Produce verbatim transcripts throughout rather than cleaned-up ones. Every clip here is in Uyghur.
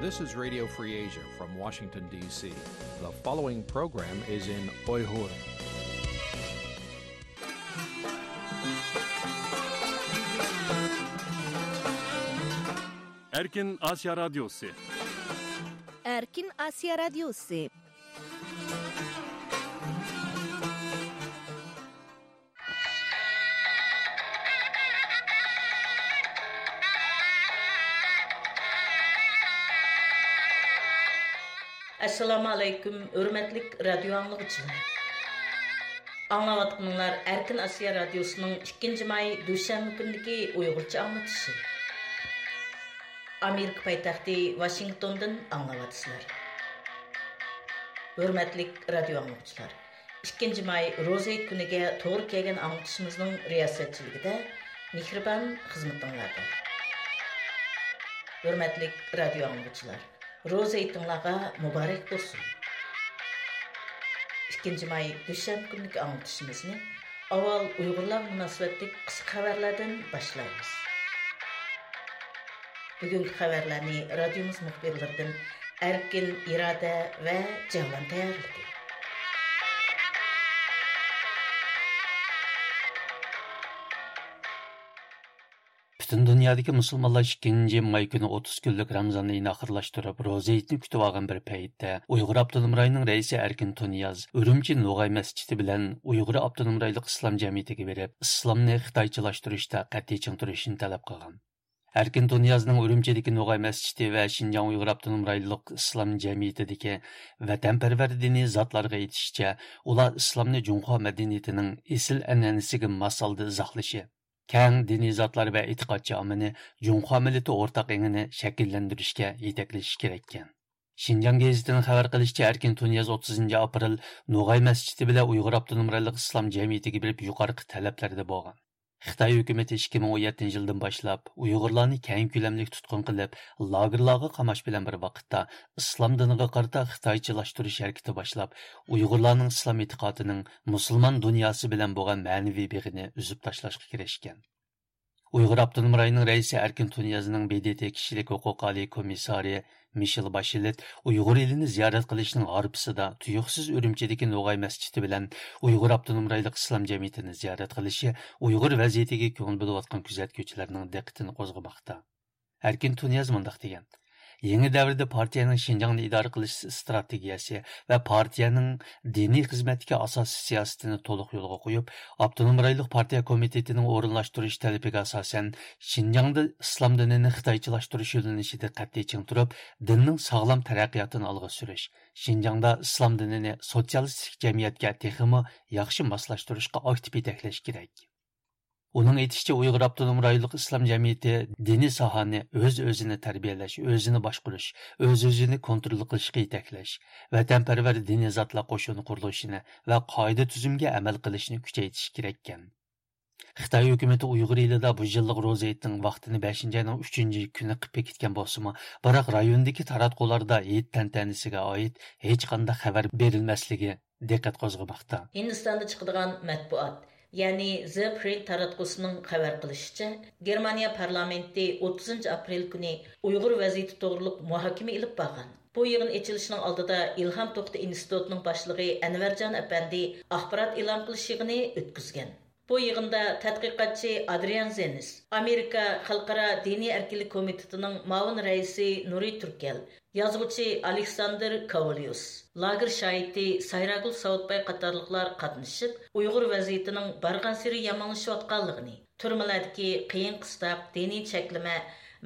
This is Radio Free Asia from Washington, D C. The following program is in Uyghur. Erkin Asya Radyosu. Erkin Asya Radyosu. ئەسسالامۇ ئەلەيكۇم، ھۆرمەتلىك رادىيو ئاڭلىغۇچىلار. ئاڭلاۋاتقىنىڭلار ئەركىن ئاسىيا رادىيوسىنىڭ ئىككىنچى ماي دۈشەنبە كۈنىدىكى ئۇيغۇرچە ئاڭلىتىشى. ئامېرىكا پايتەختى ۋاشىنگتوندىن ئاڭلاۋاتىسىلەر. ھۆرمەتلىك رادىيو ئاڭلىغۇچىلار، ئىككىنچى ماي روزا ھېيت كۈنىگە توغرا كەلگەن ئاڭلىتىشىمىزنىڭ رىياسەتچىلىكىدە مېھرىبان خىزمىتىڭلاردا. ھۆرمەتلىك رادىيو ئاڭلىغۇچىلار، روزا ھېيتىڭلارغا مۇبارەك بولسۇن! ئىككىنچى ماي دۈشەنبە كۈنلۈك ئاڭلىتىشىمىزنى ئاۋۋال ئۇيغۇرلارغا مۇناسىۋەتلىك قىسقا خەۋەرلەردىن باشلايمىز. بۈگۈنكى خەۋەرلەرنى رادىيومىز مۇخبىرلىرىدىن ئەركىن، ئىرادە ۋە جەۋلان تەييارلىدى. پۈتۈن دۇنيادىكى مۇسۇلمانلار ئىككىنچى ماي كۈنى ئوتتۇز كۈنلۈك رامزان ئېيىنى ئاخىرلاشتۇرۇپ، روزا ھېيتنى كۈتۈۋالغان بىر پەيتتە، ئۇيغۇر ئاپتونوم رايونىنىڭ رەئىسى ئەركىن تۇنىياز ئۈرۈمچى نوغاي مەسچىتى بىلەن ئۇيغۇر ئاپتونوم رايونلۇق ئىسلام جەمئىيىتىگە بېرىپ، ئىسلامنى خىتايچىلاشتۇرۇشتا قەتئىي چىڭ تۇرۇشنى تەلەپ قىلغان. ئەركىن تۇنىيازنىڭ ئۈرۈمچىدىكى نوغاي مەسچىتى ۋە شىنجاڭ ئۇيغۇر ئاپتونوم رايونلۇق ئىسلام جەمئىيىتىدىكى ۋەتەنپەرۋەر دىنىي زاتلارغا ئېيتىشىچە، ئۇلار ئىسلامنى جۇڭخۇا مەدەنىيىتىنىڭ ئېسىل ئەنئەنىسىگە ماس ھالدا ئىزاھلىشى، كەڭ دىنىي زاتلار ۋە ئېتىقادچى ئاممىنى جۇڭخۇا مىللىتى ئورتاق ئېڭىنى شەكىللەندۈرۈشكە يېتەكلىشى كېرەككەن. شىنجاڭ گېزىتىنىڭ خەۋەر قىلىشىچە، ئەركىن تۇنىياز ئوتتۇزىنچى ئاپرېل نوغاي مەسچىتى بىلەن ئۇيغۇر ئاپتونوم رايونلۇق ئىسلام جەمئىيىتىگە بېرىپ يۇقىرىقى تەلەپلەردە بولغان. خىتاي ھۆكۈمىتى ئىككى مىڭ ئون يەتتىنچى يىلدىن باشلاپ ئۇيغۇرلارنى كەڭ كۆلەملىك تۇتقۇن قىلىپ، لاگېرلارغا قاماش بىلەن بىر ۋاقىتتا، ئىسلام دىنىغا قارىتا خىتايچىلاشتۇرۇش ھەرىكىتى باشلاپ، ئۇيغۇرلارنىڭ ئىسلام ئېتىقادىنىڭ مۇسۇلمان دۇنياسى بىلەن بولغان مەنىۋى بېغىنى ئۈزۈپ تاشلاشقا كىرىشكەن. ئۇيغۇر ئاپتونوم رايونىنىڭ رەئىسى ئەركىن تۇنىيازنىڭ ب د ت كىشىلىك ھوقۇق ئالىي كومىسسارى مىشېل باشلېت ئۇيغۇر ئېلىنى زىيارەت قىلىشنىڭ ھارپىسىدا تۇيۇقسىز ئۈرۈمچىدىكى نوغاي مەسچىتى بىلەن ئۇيغۇر ئاپتونوم رايونلۇق ئىسلام جەمئىيىتىنى زىيارەت قىلىشى ئۇيغۇر ۋەزىيىتىگە كۆڭۈل بۆلۈۋاتقان كۆزەتكۈچىلەرنىڭ دىققىتىنى قوزغىماقتا. ئەركىن تۇنىياز مۇنداق دېگەن: يېڭى دەۋردە پارتىيەنىڭ شىنجاڭنى ئىدارە قىلىش ئىستراتېگىيەسى ۋە پارتىيەنىڭ دىنىي خىزمەتتىكى ئاساسىي سىياسىتىنى تولۇق يولغا قويۇپ، ئاپتونوم رايونلۇق پارتىيە كومىتېتىنىڭ ئورۇنلاشتۇرۇش تەلىپىگە ئاساسەن، شىنجاڭدا ئىسلام دىنىنى خىتايچىلاشتۇرۇش يۆنىلىشىدە قەتئىي چىڭ تۇرۇپ، دىننىڭ ساغلام تەرەققىياتىنى ئالغا سۈرۈش، شىنجاڭدا ئىسلام دىنىنى سوتسىيالىستىك جەمئىيەتكە تېخىمۇ ياخشى ماسلاشتۇرۇشقا ئاكتىپ يېتەكلەش كېرەك. ئۇنىڭ ئېيتىشىچە، ئۇيغۇر ئاپتونوم رايونلۇق ئىسلام جەمئىيىتى دىنىي ساھەنى ئۆز-ئۆزىنى تەربىيەلەش، ئۆزىنى باشقۇرۇش، ئۆز-ئۆزىنى كونترول قىلىشقا يېتەكلەش، ۋەتەنپەرۋەر دىنىي زاتلار قوشۇنى قۇرۇلۇشىنى ۋە قائىدە-تۈزۈمگە ئەمەل قىلىشنى كۈچەيتىشى كېرەككەن. خىتاي ھۆكۈمىتى ئۇيغۇر ئېلىدا بۇ يىللىق روزا ھېيتنىڭ ۋاقتىنى بەشىنچى ئاينىڭ ئۈچىنچى كۈنى قىلىپ بېكىتكەن بولسىمۇ، بىراق رايوندىكى تاراتقۇلاردا ھېيت تەنتەنىسىگە ئائىت ھېچقانداق خەۋەر بېرىلمەسلىكى دىققەت قوزغىماقتا. ھىندىستاندا چىقىدىغان مەتبۇئات، يەنى زە پرىنت تاراتقۇسىنىڭ خەۋەر قىلىشىچە، گېرمانىيە پارلامېنتى ئوتتۇزىنچى ئاپرېل كۈنى ئۇيغۇر ۋەزىيىتى توغرۇلۇق مۇھاكىمە ئېلىپ بارغان. بۇ يىغىن ئېچىلىشىنىڭ ئالدىدا ئىلھام توختى ئىنستىتۇتىنىڭ باشلىقى ئەنۋەرجان ئەپەندى ئاخبارات ئېلان قىلىش يىغىنى ئۆتكۈزگەن. بۇ يىغىندا تەتقىقاتچى ئادرىيان زېنس، ئامېرىكا خەلقئارا دىنىي ئەركىنلىك كومىتېتىنىڭ مۇئاۋىن رەئىسى نۇرى تۈركەل، يازغۇچى ئالېكساندىر كاۋليۇس، لاگېر شاھىتى سايراگۈل ساۋۇتباي قاتارلىقلار قاتنىشىپ، ئۇيغۇر ۋەزىيىتىنىڭ بارغانسېرى يامانلىشىۋاتقانلىقىنى، تۈرمىلەردىكى قىيىن-قىستاق، دىنىي چەكلىمە،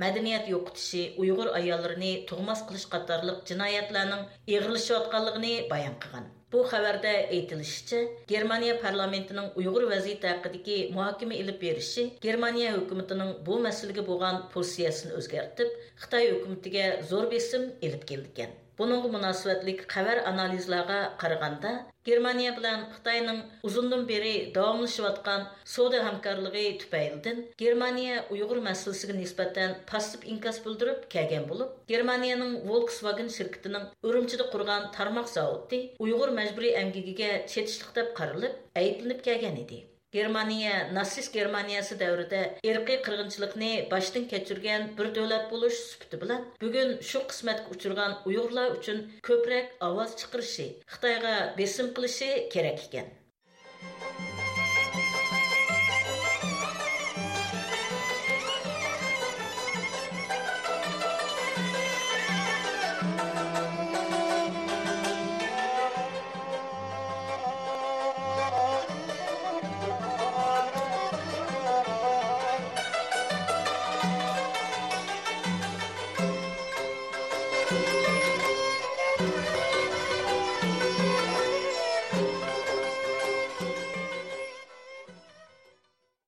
مەدەنىيەت يوقىتىشى، ئۇيغۇر ئاياللىرىنى تۇغماس قىلىش قاتارلىق جىنايەتلەرنىڭ ئېغىرلىشىۋاتقانلىقىنى بايان قىلغان. بۇ خەۋەردە ئېيتىلىشىچە، گېرمانىيە پارلامېنتىنىڭ ئۇيغۇر ۋەزىيىتى ھەققىدىكى مۇھاكىمە ئېلىپ بېرىشى گېرمانىيە ھۆكۈمىتىنىڭ بۇ مەسىلىگە بولغان پوزىتسىيەسىنى ئۆزگەرتىپ، خىتاي ھۆكۈمىتىگە زور بېسىم ئېلىپ كېلىدىكەن. بۇنىڭغا مۇناسىۋەتلىك خەۋەر ئانالىزلارغا قارىغاندا، گېرمانىيە بىلەن خىتاينىڭ ئۇزۇندىن بېرى داۋاملىشىۋاتقان سودا ھەمكارلىقى تۈپەيلىدىن گېرمانىيە ئۇيغۇر مەسىلىسىگە نىسبەتەن پاسسىپ ئىنكاس بىلدۈرۈپ كەلگەن بولۇپ، گېرمانىيەنىڭ ۋولكسۋاگېن شىركىتىنىڭ ئۈرۈمچىدە قۇرغان تارماق زاۋۇتى ئۇيغۇر مەجبۇرىي ئەمگىكىگە چېتىشلىق دەپ قارىلىپ، ئەيىبلىنىپ كەلگەن ئىدى. گېرمانىيە ناتسىست گېرمانىيەسى دەۋرىدە ئىرقىي قىرغىنچىلىقنى باشتىن كەچۈرگەن بىر دۆلەت بولۇش سۈپىتى بىلەن، بۈگۈن شۇ قىسمەتكە ئۇچرىغان ئۇيغۇرلار ئۈچۈن كۆپرەك ئاۋاز چىقىرىشى، خىتايغا بېسىم قىلىشى كېرەك ئىكەن.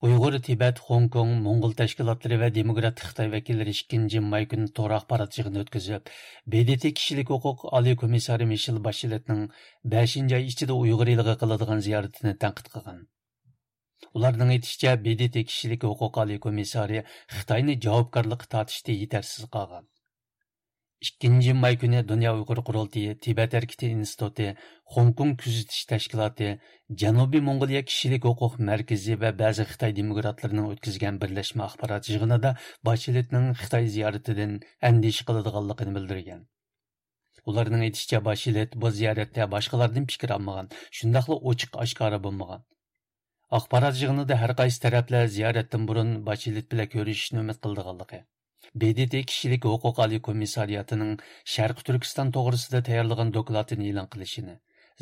ئۇيغۇر، تىبەت، خوڭكوڭ، موڭغۇل تەشكىلاتلىرى ۋە دېموكراتىك خىتاي ۋەكىللىرى ئىككىنچى ماي كۈنى تور ئاخبارات يىغىنى ئۆتكۈزۈپ، ب د ت كىشىلىك ھوقۇق ئالىي كومىسسارى مىشېل باشلېتنىڭ بەشىنچى ئاي ئىچىدە ئۇيغۇر ئېلىغا قىلىدىغان زىيارىتىنى تەنقىد قىلغان. ئۇلارنىڭ ئېيتىشىچە، ب د ت كىشىلىك ھوقۇق ئالىي كومىسسارى خىتاينى جاۋابكارلىققا تارتىشتا يېتەرسىز قالغان. ئىككىنچى ماي كۈنى دۇنيا ئۇيغۇر قۇرۇلتىيى، تىبەت ھەرىكىتى ئىنستىتۇتى، خوڭكوڭ كۆزىتىش تەشكىلاتى، جەنۇبىي موڭغۇلىيە كىشىلىك ھوقۇق مەركىزى ۋە بەزى خىتاي دېموكراتلىرىنىڭ ئۆتكۈزگەن بىرلەشمە ئاخبارات يىغىنىدا باشلېتنىڭ خىتاي زىيارىتىدىن ئەندىشە قىلىدىغانلىقىنى بىلدۈرگەن. ئۇلارنىڭ ئېيتىشىچە، باشلېت بۇ زىيارەتتە باشقىلاردىن پىكىر ئالمىغان، شۇنداقلا ئوچۇق ئاشكارا بولمىغان. ئاخبارات يىغىنىدا ھەر قايسى تەرەپلەر زىيارەتتىن بۇرۇن باشلېت بىلەن كۆرۈشۈشنى ئۈمىد قىلىدىغانلىقى، ب د ت كىشىلىك ھوقۇق ئالىي كومىسسارىياتىنىڭ شەرقىي تۈركىستان توغرىسىدا تەييارلىغان دوكلاتىنى ئېلان قىلىشىنى،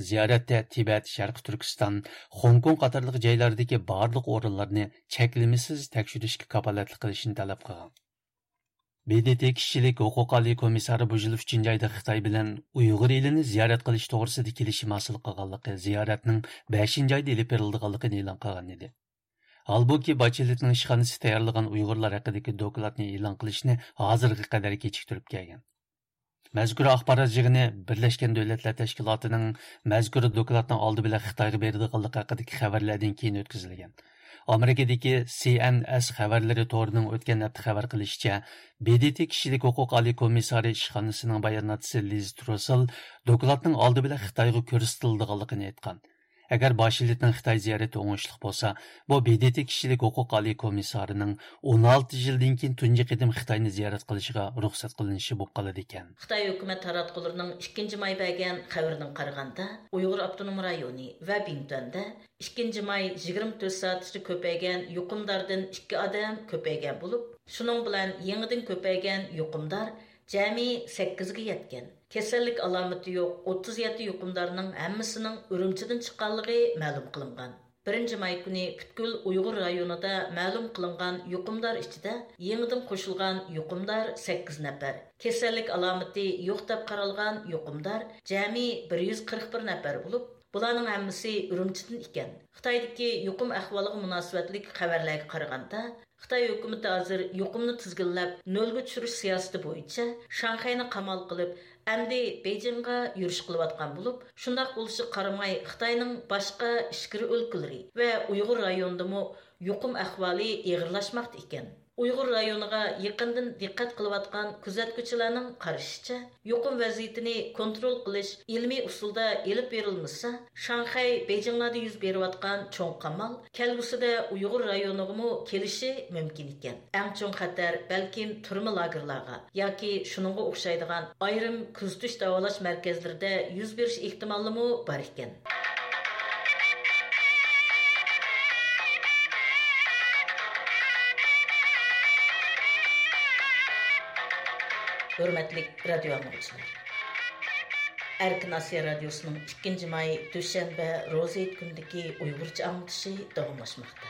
زىيارەتتە تىبەت، شەرقىي تۈركىستان، خوڭكوڭ قاتارلىق جايلاردىكى بارلىق ئورۇنلارنى چەكلىمىسىز تەكشۈرۈشكە كاپالەتلىك قىلىشىنى تەلەپ قىلغان. ب د ت كىشىلىك ھوقۇق ئالىي كومىسسارى بۇ يىل ئۈچىنچى ئايدا خىتاي بىلەن ئۇيغۇر ئېلىنى زىيارەت قىلىش توغرىسىدا كېلىشىم ھاسىل قىلغانلىقى، زىيارەتنىڭ بەشىنچى ئايدا ئېلىپ بېرىلىدىغانلىقىنى ئېلان قىلغان ئىدى. ھالبۇكى، باچېلېتنىڭ ئىشخانىسى تەييارلىغان ئۇيغۇرلار ھەققىدىكى دوكلاتنى ئېلان قىلىشنى ھازىرغا قەدەر كېچىكتۈرۈپ كەلگەن. مەزكۇر ئاخبارات يىغىنى بىرلەشكەن دۆلەتلەر تەشكىلاتىنىڭ مەزكۇر دوكلاتنىڭ ئالدى بىلەن خىتايغا بېرىدىغانلىقى ھەققىدىكى خەۋەرلەردىن كېيىن ئۆتكۈزۈلگەن. ئامېرىكىدىكى سى ئېن ئېس خەۋەرلىرى تورىنىڭ ئۆتكەن ھەپتە خەۋەر قىلىشىچە، ب د ت كىشىلىك ھوقۇق ئالىي كومىسسارى ئىشخانىسىنىڭ باياناتچىسى لىز تروسېل دوكلاتنىڭ ئالدى بىلەن خىتايغا كۆرسىتىلىدىغانلىقىنى ئېيتقان. ئەگەر باشلېتنىڭ خىتاي زىيارىتى ئوڭۇشلۇق بولسا، بۇ ب د ت كىشىلىك ھوقۇق ئالىي كومىسسارىنىڭ ئون ئالتە يىلدىن كېيىن تۇنجى قېتىم خىتاينى زىيارەت قىلىشىغا رۇخسەت قىلىنىشى بولۇپ قالىدىكەن. خىتاي ھۆكۈمەت تاراتقۇلىرىنىڭ ئىككىنچى ماي بەرگەن خەۋىرىگە قارىغاندا، ئۇيغۇر ئاپتونوم رايونى ۋە بىڭتۈەندە ئىككىنچى ماي يىگىرمە تۆت سائەتتە كۆپەيگەن يۇقۇمداردىن ئىككى ئادەم كۆپەيگەن بولۇپ، شۇنىڭ بىلەن يېڭىدىن كۆپەيگەن يۇقۇمدار جەمئىي سەككىزگە يەتكەن. كېسەللىك ئالامىتى يوق ئوتتۇز يەتتە يۇقۇمدارنىڭ ھەممىسىنىڭ ئۈرۈمچىدىن چىققانلىقى مەلۇم قىلىنغان. بىرىنچى ماي كۈنى پۈتكۈل ئۇيغۇر رايونىدا مەلۇم قىلىنغان يۇقۇمدار ئىچىدە يېڭىدىن قوشۇلغان يۇقۇمدار سەككىز نەپەر، كېسەللىك ئالامىتى يوق دەپ قارالغان يۇقۇمدار جەمئىي بىر يۈز قىرىق بىر نەپەر بولۇپ، بۇلارنىڭ ھەممىسى ئۈرۈمچىدىن ئىكەن. خىتايدىكى يۇقۇم ئەھۋالىغا مۇناسىۋەتلىك خەۋەرلەرگە قارىغاندا، خىتاي ھۆكۈمىتى ھازىر يۇقۇمنى تىزگىنلەپ، نۆلگە چۈشۈرۈش سىياسىتى بويىچە شاڭخەينى قامال قىلىپ، ئەمدى بېيجىڭغا يۈرۈش قىلىۋاتقان بولۇپ، شۇنداق بولۇشىغا قارىماي، خىتاينىڭ باشقا ئىچكىرى ئۆلكىلىرى ۋە ئۇيغۇر رايونىدىمۇ يۇقۇم ئەھۋالى ئېغىرلاشماقتا ئىكەن. ئۇيغۇر رايونىغا يېقىندىن دىققەت قىلىۋاتقان كۆزەتكۈچىلەرنىڭ قارىشىچە، يۇقۇم ۋەزىيىتىنى كونترول قىلىش ئىلمىي ئۇسۇلدا ئېلىپ بېرىلمىسا، شاڭخەي، بېيجىڭلاردا يۈز بېرىۋاتقان چوڭ قامال كەلگۈسىدە ئۇيغۇر رايونىغىمۇ كېلىشى مۇمكىن ئىكەن. ئەڭ چوڭ خەتەر بەلكىم تۈرمە لاگېرلارغا ياكى شۇنىڭغا ئوخشايدىغان ئايرىم كۆزىتىش داۋالاش مەركەزلىرىدە يۈز بېرىش ئېھتىمالىمۇ بار ئىكەن. ھۆرمەتلىك رادىيو ئاڭلىغۇچىلار! ئەركىن ئاسىيا رادىيوسىنىڭ ئىككىنچى ماي دۈشەنبە روزا ھېيت كۈنىدىكى ئۇيغۇرچە ئاڭلىتىشى داۋاملاشماقتا.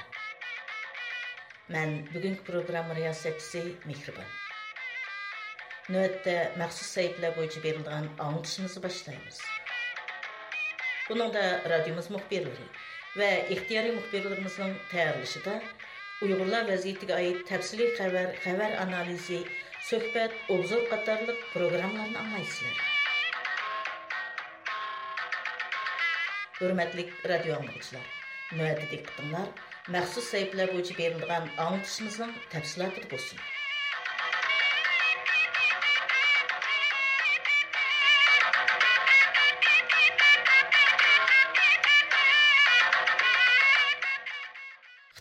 مەن بۈگۈنكى پروگرامما رىياسەتچىسى مېھرىبان. نۆۋەتتە مەخسۇس سەھىپىلەر بويىچە بېرىلىدىغان ئاڭلىتىشىمىزنى باشلايمىز. بۇنىڭدا رادىيومىز مۇخبىرلىرى ۋە ئىختىيارىي مۇخبىرلىرىمىزنىڭ تەييارلىشىدا ئۇيغۇرلار ۋەزىيىتىگە ئائىت تەپسىلىي خەۋەر، خەۋەر ئانالىزى، سۆھبەت، ئوبزور قاتارلىق پروگراممىلارنى ئاڭلايسىلەر. ھۆرمەتلىك رادىيو ئاڭلىغۇچىلار، نۆۋەتتە دىققىتىڭلار مەخسۇس سەھىپىلەر بويىچە بېرىلىدىغان ئاڭلىتىشىمىزنىڭ تەپسىلاتىدا بولسۇن.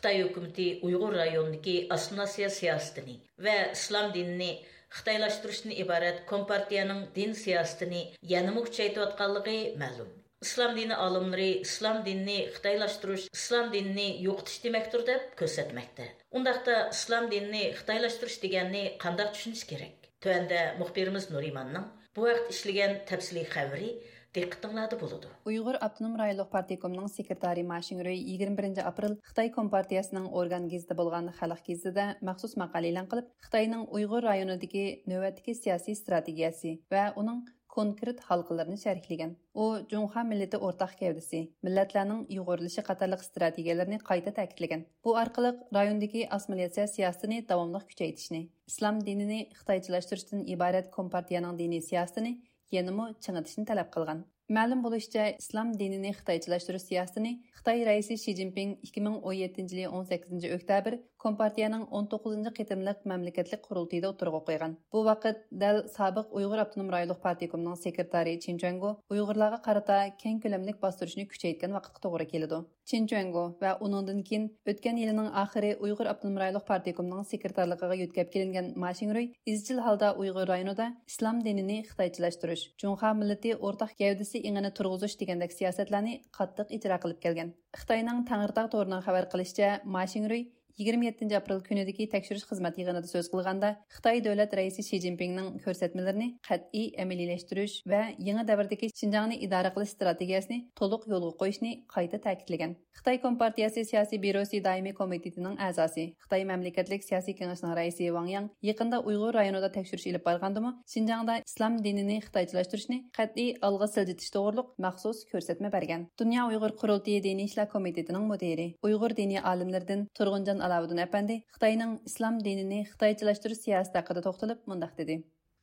خىتاي ھۆكۈمىتى ئۇيغۇر رايونىدىكى ئاسسىمىلياتسىيە سىياسىتىنى ۋە ئىسلام دىنىنى خىتايلاشتۇرۇشتىن ئىبارەت كومپارتىيەنىڭ دىن سىياسىتىنى يەنىمۇ كۈچەيتىۋاتقانلىقى مەلۇم. ئىسلام دىنى ئالىملىرى ئىسلام دىنىنى خىتايلاشتۇرۇش، ئىسلام دىنىنى يوقىتىش دېمەكتۇر دەپ كۆرسەتمەكتە. ئۇنداقتا ئىسلام دىنىنى خىتايلاشتۇرۇش دېگەننى قانداق چۈشىنىش كېرەك؟ تۆۋەندە مۇخبىرىمىز نۇرىماننىڭ بۇ ھەقتە ئىشلىگەن تەپسىلىي خەۋىرى دىققىتىڭلاردا بولىدۇ. ئۇيغۇر ئاپتونوم رايونلۇق پارتكومنىڭ سېكرېتارى ما شىڭرۇي يىگىرمە بىرىنچى ئاپرېل خىتاي كومپارتىيەسىنىڭ ئورگان گېزىتى بولغان خەلق گېزىتىدە مەخسۇس ماقالە ئېلان قىلىپ، خىتاينىڭ ئۇيغۇر رايونىدىكى نۆۋەتتىكى سىياسىي ئىستراتېگىيەسى ۋە ئۇنىڭ كونكرېت ھالقىلىرىنى شەرھلىگەن. ئۇ جۇڭخۇا مىللىتى ئورتاق گەۋدىسى، مىللەتلەرنىڭ ئۇيغۇرلىشى قاتارلىق ئىستراتېگىيەلىرىنى قايتا تەكىتلىگەن. بۇ ئارقىلىق رايوندىكى ئاسسىمىلياتسىيە سىياسىتىنى داۋاملىق كۈچەيتىشنى، ئىسلام دىنىنى خىتايچىلاشتۇرۇشتىن ئىبارەت كومپارتىيەنىڭ دىنىي سىياسىتىنى يەنىمۇ چىڭىتىشنى تەلەپ قىلغان. مەلۇم بولۇشىچە، ئىسلام دىنىنى خىتايچىلاشتۇرۇش سىياسىتىنى خىتاي رەئىسى شى جىنپىڭ ئىككى مىڭ ئون يەتتىنچى يىلى ئون سەككىزىنچى ئۆكتەبىر كومپارتىيەنىڭ ئون توققۇزىنچى قېتىملىق مەملىكەتلىك قۇرۇلتىيىدا ئوتتۇرىغا قويغان. بۇ ۋاقىت دەل سابىق ئۇيغۇر ئاپتونوم رايونلۇق پارتكومنىڭ سېكرېتارى چېن چۈەنگو ئۇيغۇرلارغا قارىتا كەڭ كۆلەملىك باستۇرۇشنى كۈچەيتكەن ۋاقىتقا توغرا كېلىدۇ. چېن چۈەنگو ۋە ئۇنىڭدىن كېيىن ئۆتكەن يىلىنىڭ ئاخىرى ئۇيغۇر ئاپتونوم رايونلۇق پارتكومنىڭ سېكرېتارلىقىغا يۆتكەپ كېلىنگەن ما شىڭرۇي ئىزچىل ھالدا ئۇيغۇر رايونىدا ئىسلام دىنىنى خىتايچىلاشتۇرۇش، جۇڭخۇا مىللىتى ئورتاق گەۋدىسى ئېڭىنى تۇرغۇزۇش دېگەندەك سىياسەتلەرنى قاتتىق ئىجرا قىلىپ كەلگەن. خىتاينىڭ تەڭرىتاغ تورىنىڭ خەۋەر قىلىشىچە، ما شىڭرۇي يىگىرمە يەتتىنچى ئاپرېل كۈنىدىكى تەكشۈرۈش خىزمەت يىغىنىدا سۆز قىلغاندا، خىتاي دۆلەت رەئىسى شى جىنپىڭنىڭ كۆرسەتمىلىرىنى قەتئىي ئەمەلىيلەشتۈرۈش ۋە يېڭى دەۋردىكى شىنجاڭنى ئىدارە قىلىش ئىستراتېگىيەسىنى تولۇق يولغا قويۇشنى قايتا تەكىتلىگەن. خىتاي كومپارتىيەسى سىياسىي بيۇروسى دائىمىي كومىتېتىنىڭ ئەزاسى، خىتاي مەملىكەتلىك سىياسىي كېڭىشىنىڭ رەئىسى ۋاڭ ياڭ يېقىندا ئۇيغۇر رايونىدا تەكشۈرۈش ئېلىپ بارغاندىمۇ، شىنجاڭدا ئىسلام دىنىنى خىتايچىلاشتۇرۇشنى قەتئىي ئالغا سىلجىتىش توغرۇلۇق مەخسۇس كۆرسەتمە بەرگەن. دۇنيا ئۇيغۇر قۇرۇلتىيى دىنىي ئىشلار كومىتېتىنىڭ مۇدىرى، ئۇيغۇر دىنىي ئالىملىرىدىن تۇرغۇنجان ئالاۋۇدۇن ئەپەندى خىتاينىڭ ئىسلام دىنىنى خىتايچىلاشتۇرۇش سىياسىتى ھەققىدە توختىلىپ مۇنداق دېدى.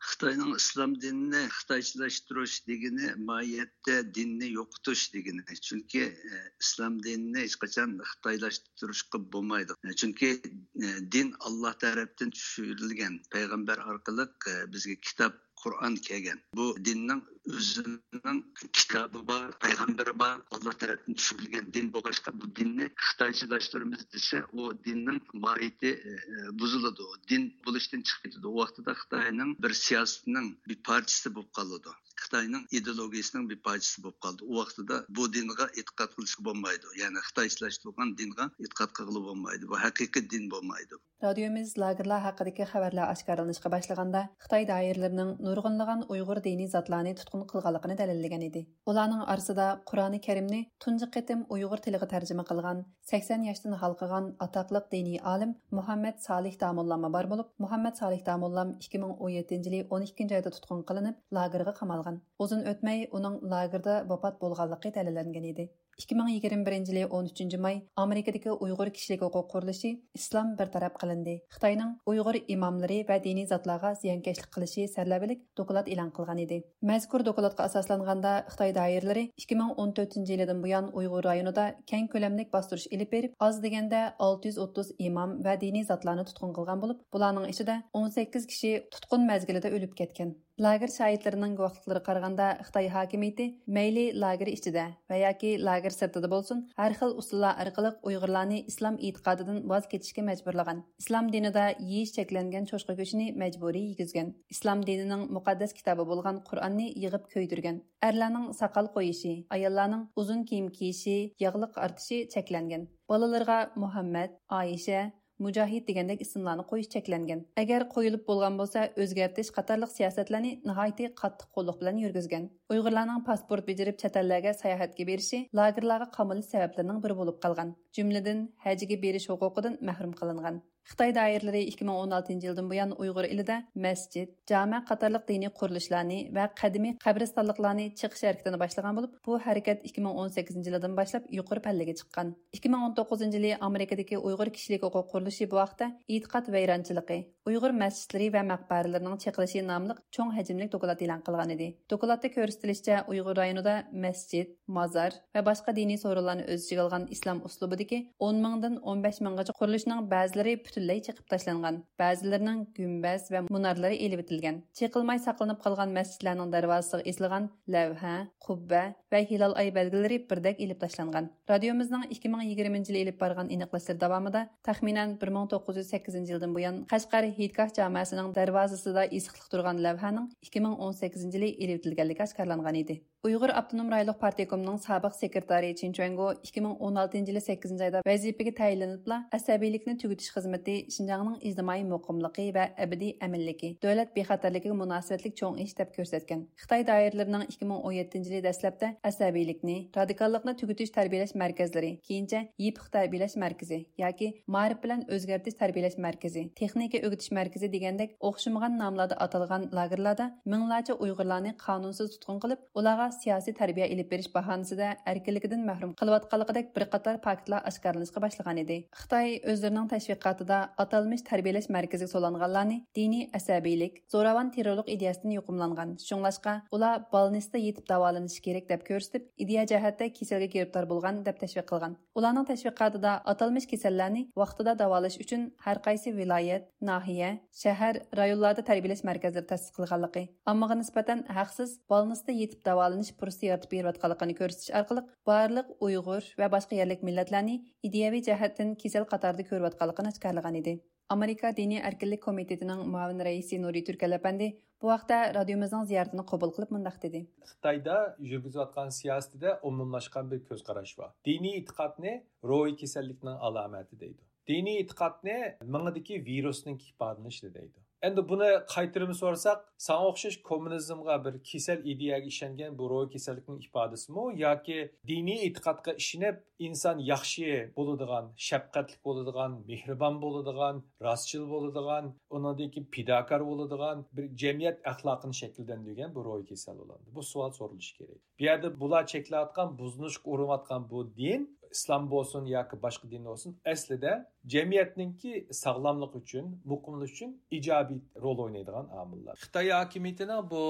خىتاينىڭ ئىسلام دىنىنى خىتايچىلاشتۇرۇش دېگىنى ماھىيەتتە دىننى يوقىتىش دېگىنى. چۈنكى، ئە، ئىسلام دىنىنى ھېچقاچان خىتايلاشتۇرۇشقا بولمايدۇ. چۈنكى، ئە، دىن ئاللا تەرەپتىن چۈشۈرۈلگەن، پەيغەمبەر ئارقىلىق، ئە، بىزگە كىتاب قۇرئان كەلگەن. بۇ دىننىڭ ئۆزىنىڭ كىتابى بار، پەيغەمبىرى بار، ئاللا تەرەپتىن چۈشۈرۈلگەن دىن بولغاچقا، بۇ دىننى خىتايچىلاشتۇرىمىز دېسە، ئۇ دىننىڭ ماھىيىتى، ئە، بۇزۇلىدۇ، دىن بولۇشتىن چىقىپ كېتىدۇ. ئۇ ۋاقتىدا خىتاينىڭ بىر سىياسىتىنىڭ بىر پارچىسى بولۇپ قالىدۇ. خىتاينىڭ ئىدېئولوگىيىسىنىڭ بىر پارچىسى بولۇپ قالىدۇ. ئۇ ۋاقتىدا بۇ دىنغا ئېتىقاد قىلىشقا بولمايدۇ. يەنى خىتايچىلاشتۇرغان دىنغا ئېتىقاد قىلغىلى بولمايدۇ. بۇ ھەقىقىي دىن بولمايدۇ. رادىيومىز لاگېرلار ھەققىدىكى خەۋەرلەر ئاشكارىلىنىشقا باشلىغاندا، خىتاي دائىرىلىرىنىڭ نۇرغۇنلىغان ئۇيغۇر دىنىي زاتلارنى تۇتقۇن قىلغانلىقىنى دەلىللىگەن ئىدى. ئۇلارنىڭ ئارىسىدا قۇرئانى كەرىمنى تۇنجى قېتىم ئۇيغۇر تىلىغا تەرجىمە قىلغان، سەكسەن ياشتىن ھالقىغان ئاتاقلىق دىنىي ئالىم مۇھەممەد سالىھ داموللاممۇ بار بولۇپ، مۇھەممەد سالىھ داموللام ئىككى مىڭ ئون يەتتىنچى يىلى ئون ئىككىنچى ئايدا تۇتقۇن قىلىنىپ، لاگېرغا قامالغان. ئۇزۇن ئۆتمەي ئۇنىڭ لاگېردا ۋاپات بولغانلىقى دەلىللەنگەن ئىدى. ئىككى مىڭ يىگىرمە بىرىنچى يىلى ئون ئۈچىنچى ماي ئامېرىكىدىكى ئۇيغۇر كىشىلىك ھوقۇق قۇرۇلۇشى ئىسلام بىر تەرەپ قىلىندى. خىتاينىڭ ئۇيغۇر ئىماملىرى ۋە دىنىي زاتلارغا زىيانكەشلىك قىلىشى سەرلەۋھىلىك دوكلات ئېلان قىلغان ئىدى. مەزكۇر دوكلاتقا ئاساسلانغاندا، خىتاي دائىرىلىرى ئىككى مىڭ ئون تۆتىنچى يىلىدىن بۇيان ئۇيغۇر رايونىدا كەڭ كۆلەملىك باستۇرۇش ئېلىپ بېرىپ، ئاز دېگەندە ئالتە يۈز ئوتتۇز ئىمام ۋە دىنىي زاتلارنى تۇتقۇن قىلغان بولۇپ، بۇلارنىڭ ئىچىدە ئون سەككىز كىشى تۇتقۇن مەزگىلىدە ئۆلۈپ كەتكەن. لاگېر شاھىتلىرىنىڭ گۇۋاھلىقلىرىغا قارىغاندا، خىتاي ھاكىمىيىتى مەيلى لاگېر ئىچىدە ۋە ياكى لاگېر سىرتىدا بولسۇن، ھەر خىل ئۇسۇللار ئارقىلىق ئۇيغۇرلارنى ئىسلام ئېتىقادىدىن ۋاز كېچىشكە مەجبۇرلىغان. ئىسلام دىنىدا يېيىش چەكلەنگەن چوشقا گۆشىنى مەجبۇرىي يېگۈزگەن. ئىسلام دىنىنىڭ مۇقەددەس كىتابى بولغان قۇرئاننى يىغىپ كۆيدۈرگەن. ئەرلەرنىڭ ساقال قويۇشى، ئاياللارنىڭ ئۇزۇن كىيىم كىيىشى، ياغلىق ئارتىشى چەكلەنگەن. بالىلىرىغا مۇھەممەد، ئائىشە، مۇجاھىد دېگەندەك ئىسىملارنى قويۇش چەكلەنگەن. ئەگەر قويۇلۇپ بولغان بولسا، ئۆزگەرتىش قاتارلىق سىياسەتلەرنى ناھايىتى قاتتىق قوللۇق بىلەن يۈرگۈزگەن. ئۇيغۇرلارنىڭ پاسپورت بېجىرىپ چەت ئەللەرگە ساياھەتكە بېرىشى لاگېرلارغا قامىلىش سەۋەبلىرىنىڭ بىرى بولۇپ قالغان. جۈملىدىن ھەجگە بېرىش ھوقۇقىدىن مەھرۇم قىلىنغان. خىتاي دائىرىلىرى ئىككى مىڭ ئون ئالتىنچى يىلدىن بۇيان ئۇيغۇر ئېلىدە مەسچىت، جامە قاتارلىق دىنىي قۇرۇلۇشلارنى ۋە قەدىمىي قەبرىستانلىقلارنى چېقىش ھەرىكىتىنى باشلىغان بولۇپ، بۇ ھەرىكەت ئىككى مىڭ ئون سەككىزىنچى يىلىدىن باشلاپ يۇقىرى پەللىگە چىققان. ئىككى مىڭ ئون توققۇزىنچى يىلى ئامېرىكىدىكى ئۇيغۇر كىشىلىك ھوقۇق قۇرۇلۇشى بۇ ھەقتە ئېتىقاد ۋەيرانچىلىقى، ئۇيغۇر مەسچىتلىرى ۋە مەقبەرىلىرىنىڭ چېقىلىشى ناملىق چوڭ ھەجىملىك دوكلات ئېلان قىلغانىدى. دوكلاتتا كۆرسىتىلىشىچە، ئۇيغۇر رايونىدا مەسچىت، مازار ۋە باشقا دىنىي سورۇنلارنى ئۆز ئىچىگە ئالغان ئىسلام ئۇسلۇبىدىكى ئون مىڭدىن ئون بەش مىڭغىچە قۇرۇلۇشنىڭ بەزىلىرى پۈتۈنلەي چېقىپ تاشلانغان، بەزىلىرىنىڭ گۈمبەز ۋە مۇنارلىرى ئېلىۋېتىلگەن. چېقىلماي ساقلىنىپ قالغان مەسچىتلەرنىڭ دەرۋازىسىغا ئېسىلغان لەۋھە، قۇببە ۋە ھىلال ئاي بەلگىلىرى بىردەك ئېلىپ تاشلانغان. رادىيومىزنىڭ ئىككى مىڭ يىگىرمىنچى يىلى ئېلىپ بارغان ئېنىقلاشلىرى داۋامىدا، تەخمىنەن بىر مىڭ توققۇز يۈز سەككىزىنچى يىلدىن بۇيان قەشقەر ھېيتگاھ جامەسىنىڭ دەرۋازىسىدا ئېسىقلىق تۇرغان لەۋھەنىڭ ئىككى مىڭ ئون سەككىزىنچى يىلى ئېلىۋېتىلگەنلىكى ئاشكارىلانغان ئىدى. ئۇيغۇر ئاپتونوم رايونلۇق پارتكومنىڭ سابىق سېكرېتارى چىن چۈەنگو ئىككى مىڭ ئون ئالتىنچى يىلى سەككىزىنچى ئايدا ۋەزىپىگە تەيىنلىنىپلا، ئەسەبىيلىكنى تۈگىتىش خىزمىتى شىنجاڭنىڭ ئىجتىمائىي مۇقىملىقى ۋە ئەبەدىي ئەمىنلىكى، دۆلەت بىخەتەرلىكىگە مۇناسىۋەتلىك چوڭ ئىش دەپ كۆرسەتكەن. خىتاي دائىرىلىرىنىڭ ئىككى مىڭ ئون يەتتىنچى يىلى دەسلەپتە ئەسەبىيلىكنى، رادىكاللىقنى تۈگىتىش تەربىيەلەش مەركەزلىرى، كېيىنچە يېپىق تەربىيەلەش مەركىزى ياكى مائارىپ بىلەن ئۆزگەرتىش تەربىيەلەش مەركىزى، تېخنىكا ئۆگىتىش مەركىزى دېگەندەك ئوخشىمىغان ناملاردا ئاتالغان لاگېرلاردا مىڭلارچە ئۇيغۇرلارنى قانۇنسىز تۇتقۇن قىلىپ، ئۇلارغا سىياسىي تەربىيە ئېلىپ بېرىش باھانىسىدە ئەركىنلىكىدىن مەھرۇم قىلىۋاتقانلىقىدەك بىر قاتار پاكىتلار ئاشكارىلىنىشقا باشلىغانىدى. خىتاي ئۆزلىرىنىڭ تەشۋىقاتىدا ئاتالمىش تەربىيەلەش مەركىزىگە سولانغانلارنى دىنىي ئەسەبىيلىك، زوراۋان تېررورلۇق ئىدىيەسىدىن يۇقۇملانغان، شۇڭلاشقا ئۇلار بالنىستتا يېتىپ داۋالىنىشى كېرەك دەپ كۆرسىتىپ، ئىدىيە جەھەتتە كېسەلگە گىرىپتار بولغان دەپ تەشۋىق قىلغان. ئۇلارنىڭ تەشۋىقاتىدا ئاتالمىش كېسەللەرنى ۋاقتىدا داۋالاش ئۈچۈن ھەر قايسى ۋىلايەت، ناھىيە، شەھەر، رايونلاردا تەربىيەلەش مەركەزلىرى تەسىس قىلغانلىقى، ئاممىغا نىسبەتەن ھەقسىز بالنىستتا يېتىپ داۋالىنىش پۇرسىتى يارىتىپ بېرىۋاتقانلىقىنى كۆرسىتىش ئارقىلىق، بارلىق ئۇيغۇر ۋە باشقا يەرلىك مىللەتلەرنى ئىدىيەۋى جەھەتتىن كېسەل قاتارىدا كۆرۈۋاتقانلىقىنى ئاشكارىلىغانىدى. ئامېرىكا دىنىي ئەركىنلىك كومىتېتىنىڭ مۇئاۋىن رەئىسى نۇرى تۈركەل ئەپەندى بۇ ھەقتە رادىيومىزنىڭ زىيارىتىنى قوبۇل قىلىپ مۇنداق دېدى. خىتايدا يۈرگۈزۈۋاتقان سىياسىتىدە ئومۇملاشقان بىر كۆز قاراش بار. دىنىي ئېتىقادنى روھىي كېسەللىكنىڭ ئالامەتى دەيدۇ. دىنىي ئېتىقادنى مېڭىدىكى ۋىرۇسنىڭ ئىپادىلىنىشى دەيدۇ. ئەمدى بۇنى قايتۇرۇپ سورىساق، ساڭا ئوخشاش كوممۇنىزمغا بىر كېسەل ئىدىيەگە ئىشەنگەن بۇ روھىي كېسەللىكنىڭ ئىپادىسىمۇ ياكى دىنىي ئېتىقادقا ئىشىنىپ، ئىنسان ياخشى بولىدىغان، شەپقەتلىك بولىدىغان، مېھرىبان بولىدىغان، راستچىل بولىدىغان، ئۇنىڭدىن كېيىن پىداكار بولىدىغان بىر جەمئىيەت ئەخلاقىنى شەكىللەندۈرگەن بۇ روھىي كېسەل بولامدۇ؟ بۇ سوئال سورىلىشى كېرەك. بۇ يەردە بۇلار چەكلەۋاتقان، بۇزۇنۇشقا ئۇرۇنۇۋاتقان بۇ دىن، ئىسلام بولسۇن ياكى باشقا دىن بولسۇن، ئەسلىدە جەمئىيەتنىڭكى ساغلاملىقى ئۈچۈن، مۇقىملىقى ئۈچۈن ئىجابىي رول ئوينايدىغان ئامىللار. خىتاي ھاكىمىيىتىنىڭ بۇ،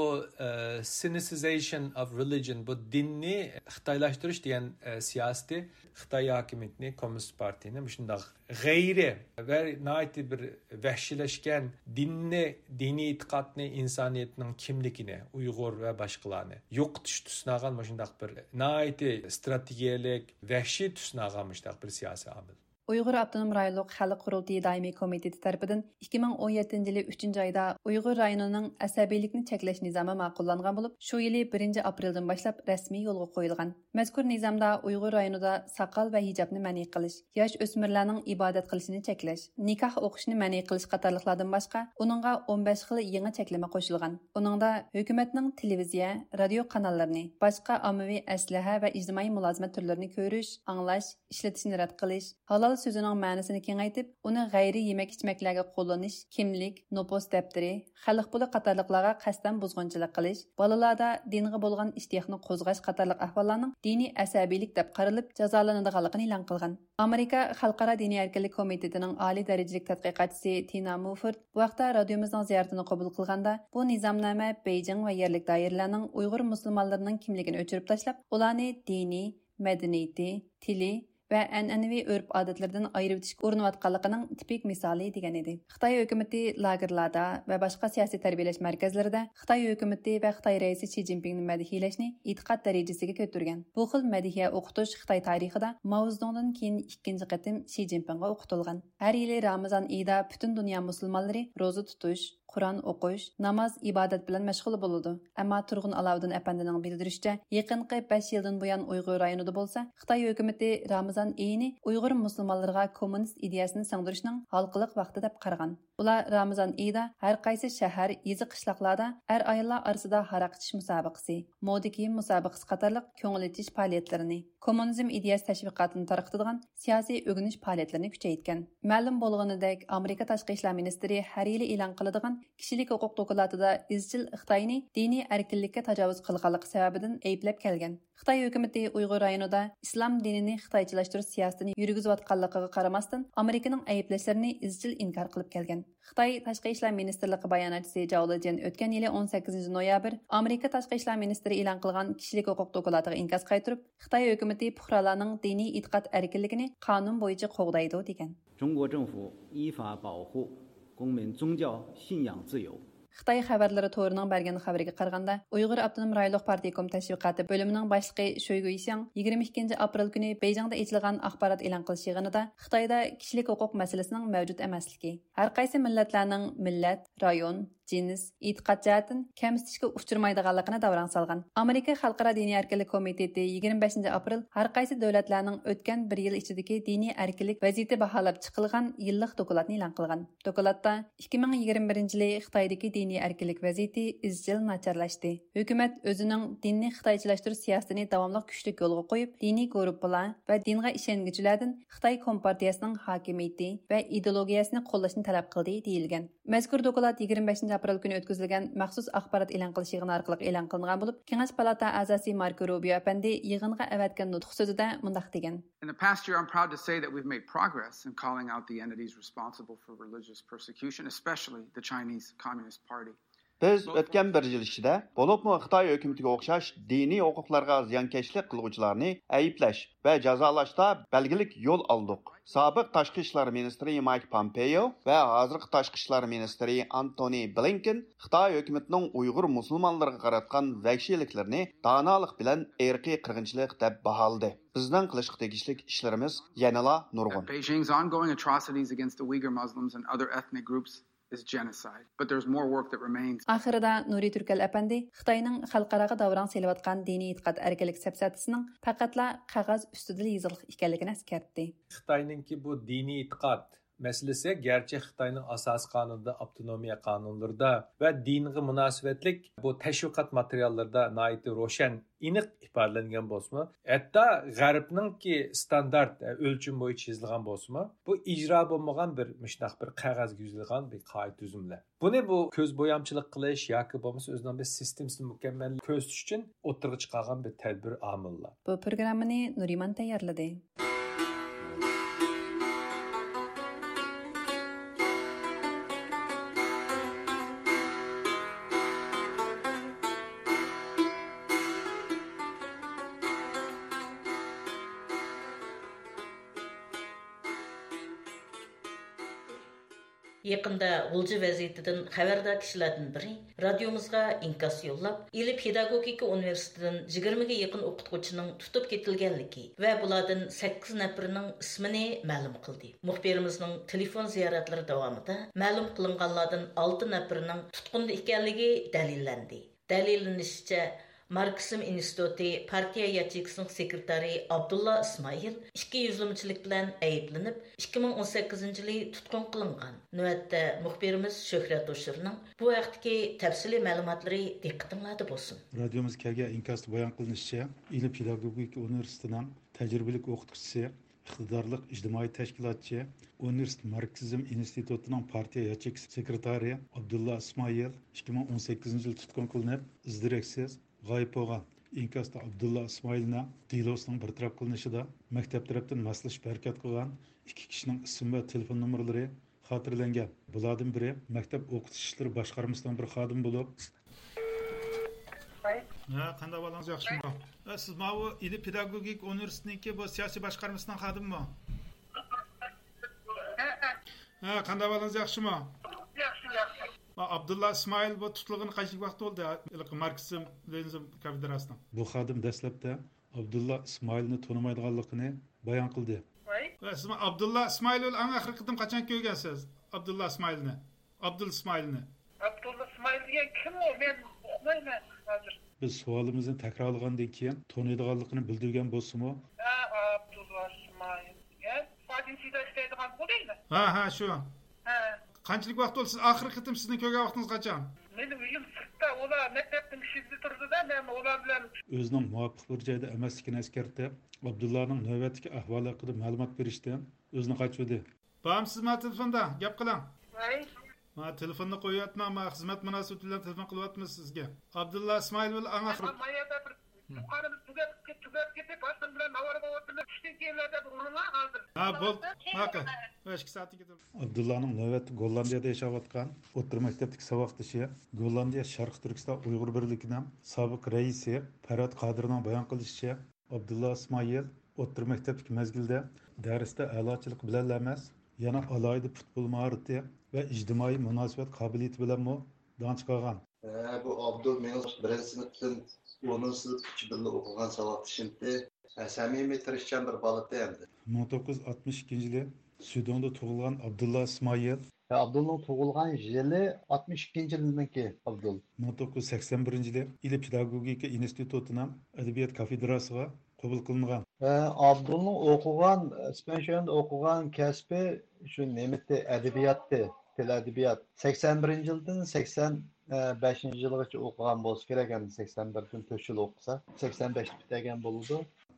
ئە، سىنىسىزېيشن ئوف رېلىجىن، بۇ دىننى خىتايلاشتۇرۇش دېگەن، ئە، سىياسىتى خىتاي ھاكىمىيىتىنى، كوممۇنىست پارتىيىنى مۇشۇنداق غەيرىي ۋە ناھايىتى بىر ۋەھشىيلەشكەن دىننى، دىنىي ئېتىقادنى، ئىنسانىيەتنىڭ كىملىكىنى، ئۇيغۇر ۋە باشقىلارنى يوقىتىشقا تۇسۇنغان مۇشۇنداق بىر ناھايىتى ئىستراتېگىيەلىك، ۋەھشىي تۇسۇنغان مۇشۇنداق بىر سىياسىي ئامىل. ئۇيغۇر ئاپتونوم رايونلۇق خەلق قۇرۇلتىيى دائىمىي كومىتېتى تەرىپىدىن ئىككى مىڭ ئون يەتتىنچى يىلى ئۈچىنچى ئايدا ئۇيغۇر رايونىنىڭ ئەسەبىيلىكنى چەكلەش نىزامى ماقۇللانغان بولۇپ، شۇ يىلى بىرىنچى ئاپرېلدىن باشلاپ رەسمىي يولغا قويۇلغان. مەزكۇر نىزامدا ئۇيغۇر رايونىدا ساقال ۋە ھىجابنى مەنئى قىلىش، ياش ئۆسمۈرلەرنىڭ ئىبادەت قىلىشىنى چەكلەش، نىكاھ ئوقۇشنى مەنئى قىلىش قاتارلىقلاردىن باشقا، ئۇنىڭغا ئون بەش خىل يېڭى چەكلىمە قوشۇلغان. ئۇنىڭدا ھۆكۈمەتنىڭ تېلېۋىزىيە، رادىيو قاناللىرىنى، باشقا ئاممىۋى ئەسلىھە ۋە ئىجتىمائىي مۇلازىمەت تۈرلىرىنى كۆرۈش، ئاڭلاش، ئىشلىتىشنى رەت قىلىش، ھالال سۆزىنىڭ مەنىسىنى كېڭەيتىپ، ئۇنى غەيرىي يېمەك-ئىچمەكلەرگە قوللىنىش، كىملىك، نوپۇس دەپتىرى، خەلق پۇلى قاتارلىقلارغا قەستەن بۇزغۇنچىلىق قىلىش، بالىلاردا دىنغا بولغان ئىشتىياقنى قوزغاش قاتارلىق ئەھۋاللارنىڭ دىنىي ئەسەبىيلىك دەپ قارىلىپ جازالىنىدىغانلىقىنى ئېلان قىلغان. ئامېرىكا خەلقئارا دىنىي ئەركىنلىك كومىتېتىنىڭ ئالىي دەرىجىلىك تەتقىقاتچىسى تىنا مۇفورد بۇ ھەقتە رادىيومىزنىڭ زىيارىتىنى قوبۇل قىلغاندا، بۇ نىزامنامە بېيجىڭ ۋە يەرلىك دائىرىلەرنىڭ ئۇيغۇر مۇسۇلمانلىرىنىڭ كىملىكىنى ئۆچۈرۈپ تاشلاپ، ئۇلارنى دىنىي، مەدەنىيىتى، تىلى ۋە ئەنئەنىۋى ئۆرپ-ئادەتلىرىدىن ئايرىۋېتىشكە ئۇرۇنۇۋاتقانلىقىنىڭ تىپىك مىسالى، دېگەن ئىدى. خىتاي ھۆكۈمىتى لاگېرلاردا ۋە باشقا سىياسىي تەربىيەلەش مەركەزلىرىدە خىتاي ھۆكۈمىتى ۋە خىتاي رەئىسى شى جىنپىڭنى مەدھىيەلەشنى ئېتىقاد دەرىجىسىگە كۆتۈرگەن. بۇ خىل مەدھىيە ئوقۇتۇش خىتاي تارىخىدا ماۋزېدۇڭدىن كېيىن ئىككىنچى قېتىم شى جىنپىڭغا ئوقۇتۇلغان. ھەر يىلى رامىزان ئېيىدا پۈتۈن دۇنيا مۇسۇلمانلىرى روزا تۇتۇش، قۇرئان ئوقۇش، ناماز، ئىبادەت بىلەن مەشغۇل بولىدۇ. ئەمما تۇرغۇن ئالاۋۇدۇن ئەپەندىنىڭ بىلدۈرۈشىچە، يېقىنقى بەش يىلدىن بۇيان ئۇيغۇر رايونىدا بولسا، خىتاي ھۆكۈمىتى رامىزان ئېيىنى ئۇيغۇر مۇسۇلمانلىرىغا كوممۇنىست ئىدىيەسىنى سىڭدۈرۈشنىڭ ھالقىلىق ۋاقتى دەپ قارىغان. ئۇلار رامىزان ئېيىدا ھەر قايسى شەھەر، يېزا، قىشلاقلاردا ئەر-ئاياللار ئارىسىدا ھاراق ئىچىش مۇسابىقىسى، مودا كىيىم مۇسابىقىسى قاتارلىق كۆڭۈل ئېچىش پائالىيەتلىرىنى، كوممۇنىزم ئىدىيەسى تەشۋىقاتىنى تارقىتىدىغان سىياسىي ئۆگىنىش پائالىيەتلىرىنى كۈچەيتكەن. مەلۇم بولغىنىدەك، ئامېرىكا تاشقى ئىشلار مىنىستىرى ھەر يىلى ئېلان قىلىدىغان كىشىلىك ھوقۇق دوكلاتىدا ئىزچىل خىتاينى دىنىي ئەركىنلىككە تاجاۋۇز قىلغانلىقى سەۋەبىدىن ئەيىبلەپ كەلگەن. خىتاي ھۆكۈمىتى ئۇيغۇر رايونىدا ئىسلام دىنىنى خىتايچىلاشتۇرۇش سىياسىتىنى يۈرگۈزۈۋاتقانلىقىغا قارىماستىن، ئامېرىكىنىڭ ئەيىبلەشلىرىنى ئىزچىل ئىنكار قىلىپ كەلگەن. خىتاي تاشقى ئىشلار مىنىستىرلىقى باياناتچىسى جاۋ لېجيەن ئۆتكەن يىلى ئون سەككىزىنچى نويابىر ئامېرىكا تاشقى ئىشلار مىنىستىرى ئېلان قىلغان كىشىلىك ھوقۇق دوكلاتىغا ئىنكاس قايتۇرۇپ، خىتاي ھۆكۈمىتى پۇقرالارنىڭ دىنىي ئېتىقاد ئەركىنلىكىنى قانۇن بويىچە قوغدايدۇ، دېگەن. 中国政府依法保护公民宗教信仰自由。 خىتاي خەۋەرلىرى تورىنىڭ بەرگەن خەۋىرىگە قارىغاندا، ئۇيغۇر ئاپتونوم رايونلۇق پارتكوم تەشۋىقاتى بۆلۈمىنىڭ باشلىقى شۆي گۇيشياڭ يىگىرمە ئىككىنچى ئاپرېل كۈنى بېيجىڭدا ئېچىلغان ئاخبارات ئېلان قىلىش يىغىنىدا خىتايدا كىشىلىك ھوقۇق مەسىلىسىنىڭ مەۋجۇت ئەمەسلىكى، ھەرقايسى مىللەتلەرنىڭ مىللەت، رايون، جىنس، ئېتىقاد جەھەتتىن كەمسىتىشكە ئۇچرىمايدىغانلىقىنى داۋراڭ سالغان. ئامېرىكا خەلقئارا دىنىي ئەركىنلىك كومىتېتى يىگىرمە بەشىنچى ئاپرېل ھەرقايسى دۆلەتلەرنىڭ ئۆتكەن بىر يىل ئىچىدىكى دىنىي ئەركىنلىك ۋەزىيىتى باھالاپ چىقىلغان يىللىق دوكلاتنى ئېلان قىلغان. دوكلاتتا، ئىككى مىڭ يىگىرمە بىرىنچى يىلى خىتايدىكى دىنىي ئەركىنلىك ۋەزىيىتى ئىزچىل ناچارلاشتى. ھۆكۈمەت ئۆزىنىڭ دىننى خىتايچىلاشتۇرۇش سىياسىتىنى داۋاملىق كۈچلۈك يولغا قويۇپ، دىنىي گۇرۇپپىلار ۋە دىنغا ئىشەنگۈچىلەردىن خىتاي كومپارتىيەسىنىڭ ھاكىمىيىتى ۋە ئىدېئولوگىيەسىنى قوللاشنى تەلەپ قىلدى، دېيىلگەن. مەزكۇر دوكلات يىگىرمە بەشىنچى ئاپرېل كۈنى ئۆتكۈزۈلگەن مەخسۇس ئاخبارات ئېلان قىلىش يىغىنى ئارقىلىق ئېلان قىلىنغان بولۇپ، كېڭەش پالاتا ئەزاسى ماركو روبىيو ئەپەندى يىغىنغا ئەۋەتكەن نۇتۇق سۆزىدە مۇنداق دېگەن. In the past year, I'm proud to say that we've made progress in calling out the entities responsible for religious persecution, especially the Chinese Communist Party. بىز ئۆتكەن بىر يىل ئىچىدە، بولۇپمۇ خىتاي ھۆكۈمىتىگە ئوخشاش دىنىي ھوقۇقلارغا زىيانكەشلىك قىلغۇچىلارنى ئەيىبلەش ۋە جازالاشتا بەلگىلىك يول ئالدۇق. سابىق تاشقى ئىشلار مىنىستىرى مايك پامپېيو ۋە ھازىرقى تاشقى ئىشلار مىنىستىرى ئانتونى بلىنكېن خىتاي ھۆكۈمىتىنىڭ ئۇيغۇر مۇسۇلمانلىرىغا قاراتقان ۋەھشىيلىكلىرىنى دانالىق بىلەن ئىرقىي قىرغىنچىلىق دەپ باھالىدى. بىزنىڭ قىلىشقا تېگىشلىك ئىشلىرىمىز يەنىلا نۇرغۇن. Beijing's ongoing atrocities against the Uyghur Muslims and other ethnic groups is genocide, but there's more work that remains. ئاخىرىدا نۇرى تۈركەل ئەپەندى خىتاينىڭ خەلقئاراغا داۋراڭ سېلىۋاتقان دىنىي ئېتىقاد ئەركىنلىك سەپسەتىسىنىڭ پەقەتلا قەغەز ئۈستىدىلا يېزىقلىق ئىكەنلىكىنى ئەسكەرتتى. خىتاينىڭكى بۇ دىنىي ئېتىقاد مەسىلىسى گەرچە خىتاينىڭ ئاساسىي قانۇنىدا، ئاپتونومىيە قانۇنلىرىدا ۋە دىنغا مۇناسىۋەتلىك بۇ تەشۋىقات ماتېرىياللىرىدا ناھايىتى روشەن، ئېنىق ئىپادىلەنگەن بولسىمۇ، ھەتتا غەربنىڭكى ستاندارت ئۆلچىمى بويىچە يېزىلغان بولسىمۇ، بۇ ئىجرا بولمىغان بىر مۇشۇنداق بىر قەغەزگە يېزىلغان بىر قائىدە تۈزۈملەر. بۇنى بۇ كۆز بويامچىلىق قىلىش ياكى بولمىسا ئۆزىنىڭ بىر سىستېمىسىنى مۇكەممەل كۆرسىتىش ئۈچۈن ئوتتۇرىغا چىقارغان بىر تەدبىر ئامىللار. بۇ پروگراممىنى نۇرىمان تەييارلىدى. يېقىندا غۇلجا ۋەزىيىتىدىن خەۋەردار كىشىلەردىن بىرى رادىيومىزغا ئىنكاس يوللاپ، ئىلى پېداگوگىكا ئۇنىۋېرسىتېتىدىن يىگىرمىگە يېقىن ئوقۇتقۇچىنىڭ تۇتۇپ كېتىلگەنلىكى ۋە بۇلاردىن سەككىز نەپىرىنىڭ ئىسمىنى مەلۇم قىلدى. مۇخبىرىمىزنىڭ تېلېفون زىيارەتلىرى داۋامىدا مەلۇم قىلىنغانلاردىن ئالتە نەپىرىنىڭ تۇتقۇندا ئىكەنلىكى دەلىللەندى. دەلىللىنىشىچە، ماركسىزم ئىنستىتۇتى پارتىيە ياچېيكىسىنىڭ سېكرېتارى ئابدۇللا ئىسمائىل ئىككى يۈزلىمىچىلىك بىلەن ئەيىبلىنىپ، ئىككى مىڭ ئون سەككىزىنچى يىلى تۇتقۇن قىلىنغان. نۆۋەتتە مۇخبىرىمىز شۆھرەت ھوشۇرنىڭ بۇ ھەقتىكى تەپسىلىي مەلۇماتلىرى دىققىتىڭلاردا بولسۇن. رادىيومىز كەلگەن ئىنكاستا بايان قىلىنىشىچە، ئىلى پېداگوگىكا ئۇنىۋېرسىتېتىنىڭ تەجرىبىلىك ئوقۇتقۇچىسى، ئىقتىدارلىق ئىجتىمائىي تەشكىلاتچى، ئۇنىۋېرسىتېت ماركسىزم ئىنستىتۇتىنىڭ پارتىيە ياچېيكىسى سېكرېتارى ئابدۇللا ئىسمائىل ئىككى مىڭ ئون سەككىزىنچى يىلى تۇتقۇن قىلىنىپ، ئىز دېرەكسىز غايىب بولغان. ئىنكاستا ئابدۇللا ئىسمائىلنىڭ دېلوسىنىڭ بىر تەرەپ قىلىنىشىدا مەكتەپ تەرەپتىن ماسلىشىپ ھەرىكەت قىلغان ئىككى كىشىنىڭ ئىسىم ۋە تېلېفون نومۇرلىرى خاتىرىلەنگەن. بۇلاردىن بىرى مەكتەپ ئوقۇتۇش ئىشلىرى باشقارمىسىنىڭ بىر خادىمى بولۇپ، ھە، قانداق ئەھۋالىڭىز، ياخشىمۇ؟ ھە، سىز ماۋۇ ئىلى پېداگوگىك ئۇنىۋېرسىتېتىنىڭكى بۇ سىياسىي باشقارمىسىنىڭ خادىمىمۇ؟ ھە، قانداق ئەھۋالىڭىز، ياخشىمۇ؟ ياخشى، ياخشى. ئابدۇللا ئىسمائىل بۇ تۇتۇلغىنى قانچىلىك ۋاقىت بولدى؟ ھېلىقى ماركسىزم لېنىنىزم كافېدراسىنىڭ. بۇ خادىم دەسلەپتە ئابدۇللا ئىسمائىلنى تونۇمايدىغانلىقىنى بايان قىلدى. ۋاي. ۋە سىز ئابدۇللا ئىسمائىل بىلەن ئەڭ ئاخىرقى قېتىم قاچان كۆرگەنسىز؟ ئابدۇللا ئىسمائىلنى. ئابدۇل ئىسمائىل. ئابدۇللا ئىسمائىل دېگەن كىم ئۇ؟ مەن ئۇقمايمەن ھازىر. بىز سوئالىمىزنى تەكرارلىغاندىن كېيىن تونۇيدىغانلىقىنى بىلدۈرگەن بولسىمۇ. ھە، ئابدۇللا ئىسمائىل دېگەن. فاجىنچىدا ئىشلەيدىغان بۇ دەيمەن. ھە، ھە، شۇ. ھە. قانچىلىك ۋاقىت بولدى؟ سىز ئاخىرقى قېتىم سىزنى كۆرگەن ۋاقتىڭىز قاچان؟ مېنىڭ ئۆيۈم سىرتتا، ئۇلار مەكتەپنىڭ ئىشىكىدە تۇرىدۇ-دە، مەن ئۇلار بىلەن. ئۆزىنىڭ مۇۋاپىق بىر جايدا ئەمەسلىكىنى ئەسكەرتىپ، ئابدۇللانىڭ نۆۋەتتىكى ئەھۋالى ھەققىدە مەلۇمات بېرىشتىن ئۆزىنى قاچۇردى. بارمسىز ما تېلېفوندا؟ گەپ قىلىڭ. ۋاي. ما تېلېفوننى قويۇۋەتمەڭ، ما خىزمەت مۇناسىۋىتى بىلەن تېلېفون قىلىۋاتىمىز سىزگە. ئابدۇللا ئىسمائىل بىلەن ئەڭ ئاخىرى. ما يەردە بىر يۇقىرىمىز تۈگەپ، تۈگەپ كېتىپ، ھازىر بىلەن ناۋارىغا ئولتۇردۇق. چۈشتىن كېيىنلەردە بۇ ئۇرۇڭلار ھازىر. ھە، بول. ماقۇل. ئىككى سائەتتىن كېيىن. ئابدۇللانىڭ نۆۋەتتە گوللاندىيەدە ياشاۋاتقان ئوتتۇرا مەكتەپتىكى ساۋاقدىشى، گوللاندىيە شەرقىي تۈركىستان ئۇيغۇر بىرلىكىنىڭ سابىق رەئىسى پەرھات قادىرنىڭ بايان قىلىشىچە، ئابدۇللا ئىسمائىل ئوتتۇرا مەكتەپتىكى مەزگىلدە دەرستە ئەلاچىلىق بىلەنلا ئەمەس، يەنە ئالاھىدە پۇتبول ماھارىتى ۋە ئىجتىمائىي مۇناسىۋەت قابىلىيىتى بىلەنمۇ داڭ چىقارغان. ھە، بۇ ئابدۇل مېنىڭ بىرىنچى سىنىپتىن ئونىنچى سىنىپقىچە بىللە ئوقۇغان ساۋاقدىشىمتى. ھە، سەمىمىي، تىرىشچان بىر بالىتى ئەمدى. مىڭ توققۇز يۈز ئاتمىش ئىككىنچى يىلى سۈدوڭدا تۇغۇلغان ئابدۇللا ئىسمائىل. ھە، ئابدۇلنىڭ تۇغۇلغان يىلى ئاتمىش ئىككىنچى يىلنىڭكى ئابدۇل. مىڭ توققۇز يۈز سەكسەن بىرىنچى يىلى ئىلى پېداگوگىكا ئىنستىتۇتىنىڭ ئەدەبىيات كافېدراسىغا قوبۇل قىلىنغان. ھە، ئابدۇلنىڭ ئوقۇغان، سپېنشېندا ئوقۇغان كەسپى شۇ نېمىتى، ئەدەبىياتتى، تىل ئەدەبىيات. سەكسەن بىرىنچى يىلدىن سەكسەن بەشىنچى يىلغىچە ئوقۇغان بولسا كېرەك، ئەمدى سەكسەن بىردىن تۆت يىل ئوقۇسا، سەكسەن بەشتە پۈتتۈرگەن بولىدۇ.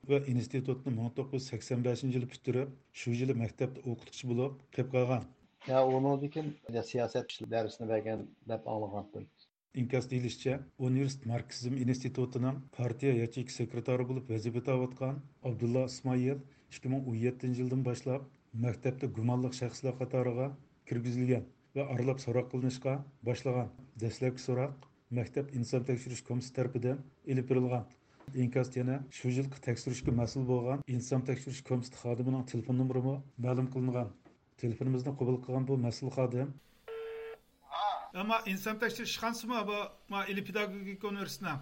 ۋە ئىنستىتۇتنى مىڭ توققۇز يۈز سەكسەن بەشىنچى يىلى پۈتتۈرۈپ، شۇ يىلى مەكتەپتە ئوقۇتقۇچى بولۇپ قېلىپ قالغان. يا ئۇنىڭدىن كېيىن سىياسەت دەرسىنى بەرگەن دەپ ئاڭلىغانتىم. ئىنكاس دېيىلىشىچە، ئۇنىۋېرسىتېت ماركسىزم ئىنستىتۇتىنىڭ پارتىيە ياچېيكا سېكرېتارى بولۇپ ۋەزىپە ئۆتەۋاتقان ئابدۇللا ئىسمائىل ئىككى مىڭ ئون يەتتىنچى يىلدىن باشلاپ مەكتەپتە گۇمانلىق شەخسلەر قاتارىغا كىرگۈزۈلگەن ۋە ئارىلاپ سوراق قىلىنىشقا باشلىغان. دەسلەپكى سوراق مەكتەپ ئىنسان تەكشۈرۈش كومىتېتى تەرىپىدىن ئېلىپ بېرىلغان. ئىنكاستا يەنە شۇ يىلقى تەكشۈرۈشكە مەسئۇل بولغان ئىنسان تەكشۈرۈش كومىتېتى خادىمىنىڭ تېلېفون نومۇرىمۇ مەلۇم قىلىنغان. تېلېفونىمىزنى قوبۇل قىلغان بۇ مەسئۇل خادىم. ئەمما ئىنسان تەكشۈرۈش ئىشخانىسىمۇ بۇ، ما، ئىلى پېداگوگىكا ئۇنىۋېرسىتېتىنىڭ؟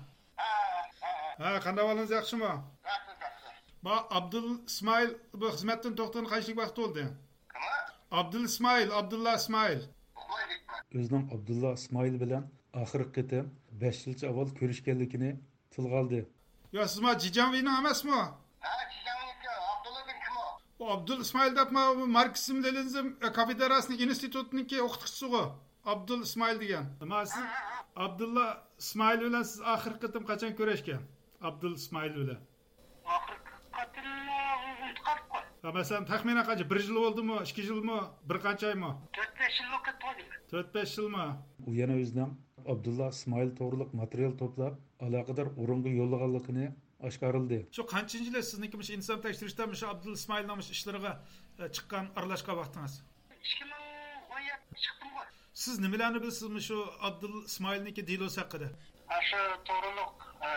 ھە، قانداق ئەھۋالىڭىز، ياخشىمۇ؟ ياخشى، ياخشى. ما، ئابدۇل ئىسمائىل بۇ خىزمەتتىن توختىغىنى قانچىلىك ۋاقىت بولدى؟ كىم؟ ئابدۇل ئىسمائىل، ئابدۇللا ئىسمائىل. ئۇخلايدۇ. ئۆزىنىڭ ئابدۇللا ئىسمائىل بىلەن ئاخىرقى قېتىم بەش يىلچە ئاۋۋال كۆرۈشكەنلىكىنى تىلغا ئالدى. يا، سىز ما جىجاڭۋېينىڭ ئەمەسمۇ؟ ھە، جىجاڭۋېينىڭكى. ئابدۇللا دېگەن كىم ئۇ؟ ئۇ ئابدۇل ئىسمائىل دەپ، ما، ماركسىزم لېنىنىزم كافېدراسىنىڭ ئىنستىتۇتىنىڭكى ئوقۇتقۇچىسىغۇ. ئابدۇل ئىسمائىل دېگەن. ما، سىز ھە، ھە، ھە. ئابدۇللا ئىسمائىل بىلەن سىز ئاخىرقى قېتىم قاچان كۆرۈشكەن؟ ئابدۇل ئىسمائىل بىلەن. ئاخىرقى قېتىمنى ئۇنتۇپ قالدۇققۇ. ھە، مەسىلەن، تەخمىنەن قانچە؟ بىر يىل بولدىمۇ؟ ئىككى يىلمۇ؟ بىر قانچە ئايمۇ؟ تۆت-بەش يىل ۋاقىت بولدى. تۆت-بەش يىلمۇ؟ ئۇ يەنە ئۆزىنىڭ ئابدۇللا ئىسمائىل توغرۇلۇق ماتېرىيال توپلاپ، ئالاقىدار ئورۇنغا يوللىغانلىقىنى ئاشكارىلىدى. شۇ قانچىنچى يىلى سىزنىڭكى مۇشۇ ئىنسان تەكشۈرۈشتە مۇشۇ ئابدۇل ئىسمائىلنىڭ مۇشۇ ئىشلىرىغا، ئە، چىققان، ئارىلاشقان ۋاقتىڭىز؟ ئىككى مىڭ ئون يەتتە چىقتىمغۇ. سىز نېمىلەرنى بىلىسىز مۇشۇ ئابدۇل ئىسمائىلنىڭكى دېلوسى ھەققىدە؟ ئاشۇ توغرۇلۇق، ئە،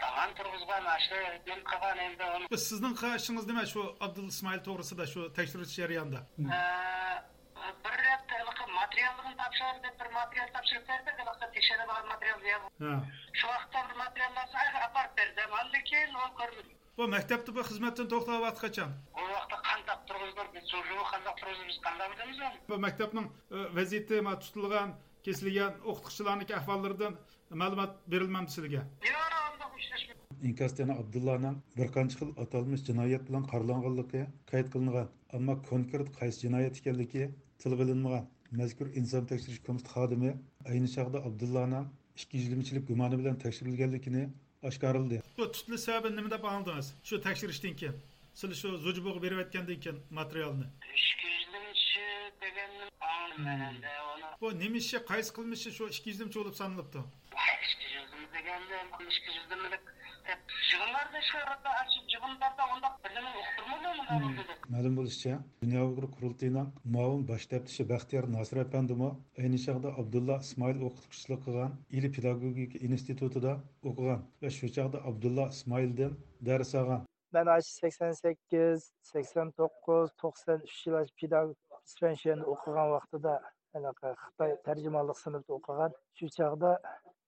داۋان تۇرغۇزغان، ئاشۇ نېمە قىلغان ئەمدى ئۇنى. سىزنىڭ قىلغان ئىشىڭىز نېمە شۇ ئابدۇل ئىسمائىل توغرىسىدا، شۇ تەكشۈرۈش جەريانىدا؟ ئە، بىر رەت ھېلىقى ماتېرىياللىرىنى تاپشۇرۇڭ دەپ بىر ماتېرىيال تاپشۇرۇپ بەردى، ھېلىقى تەكشۈرىدىغان ماتېرىيال دېگەن. ھە. شۇ ۋاقىتتا بىر ماتېرىياللارنى ئاپىرىپ بەردىم، ئاندىن كېيىن ئۇنى كۆرمىدىم. بۇ مەكتەپتە بۇ خىزمەتتىن توختاپ ۋاقتى قاچان؟ بۇ ۋاقىتتا قانداق تۇرغۇزدۇق بىز، شۇ قانداق تۇرغۇزدۇق بىز قانداق بىلىمىز ئۇنى؟ بۇ مەكتەپنىڭ، ئە، ۋەزىيىتى، ما، تۇتۇلغان، كېسىلگەن ئوقۇتقۇچىلارنىڭكى ئەھۋاللىرىدىن مەلۇمات بېرىلمەمدۇ سىلىگە؟ ياق، ئانداق ئۇچراشمىدۇق. ئىنكاستا يەنە ئابدۇللانىڭ بىر قانچە خىل ئاتالمىش جىنايەت بىلەن قارىلانغانلىقى قەيت قىلىنغان، ئەمما كونكرېت قايسى جىنايەت ئىكەنلىكى تىلغا ئېلىنمىغان. مەزكۇر ئىنسان تەكشۈرۈش كومىتېتى خادىمى ئەينى چاغدا ئابدۇللانىڭ ئىككى يۈزلىمىچىلىك گۇمانى بىلەن تەكشۈرۈلگەنلىكىنى ئاشكارىلىدى. بۇ تۇتۇلۇش سەۋەبىنى نېمە دەپ ئاڭلىدىڭىز؟ شۇ تەكشۈرۈشتىن كېيىن، سىلەر شۇ زۇجىبۇغا بېرىۋەتكەندىن كېيىن ماتېرىيالنى. ئىككى يۈزلىمىچى دېگەننى ئاڭلىدىم مەن ئەمدى ئۇنى. بۇ نېمە ئىشى، قايسى قىلمىشى شۇ ئىككى يۈزلىمىچى بولۇپ سانىلىپتۇ؟ ئىككى يۈزلىمە دېگەندە، ئىككى يۈزلىمىلىك دەپ يىغىنلاردا شۇ يەردە ئاشۇ يىغىنلاردا ئۇنداق بىرنېمىنى ئۇقتۇرمىدىم، مۇنداق بولدى دەپ. مەلۇم بولۇشىچە، دۇنيا ئۇيغۇر قۇرۇلتىيىنىڭ مۇئاۋىن باش تەپتىشى بەختىيار ناسىر ئەپەندىمۇ ئەينى چاغدا ئابدۇللا ئىسمائىل ئوقۇتقۇچىلىق قىلغان ئىلى پېداگوگىكا ئىنستىتۇتىدا ئوقۇغان ۋە شۇ چاغدا ئابدۇللا ئىسمائىلدىن دەرس ئالغان. مەن ئاشۇ سەكسەن سەككىز، سەكسەن توققۇز، توقسەن ئۈچ يىل ئاشۇ پېداگوگ سپېنشېندا ئوقۇغان ۋاقتىدا، ھېلىقى خىتاي تەرجىمانلىق سىنىپتا ئوقۇغان. شۇ چاغدا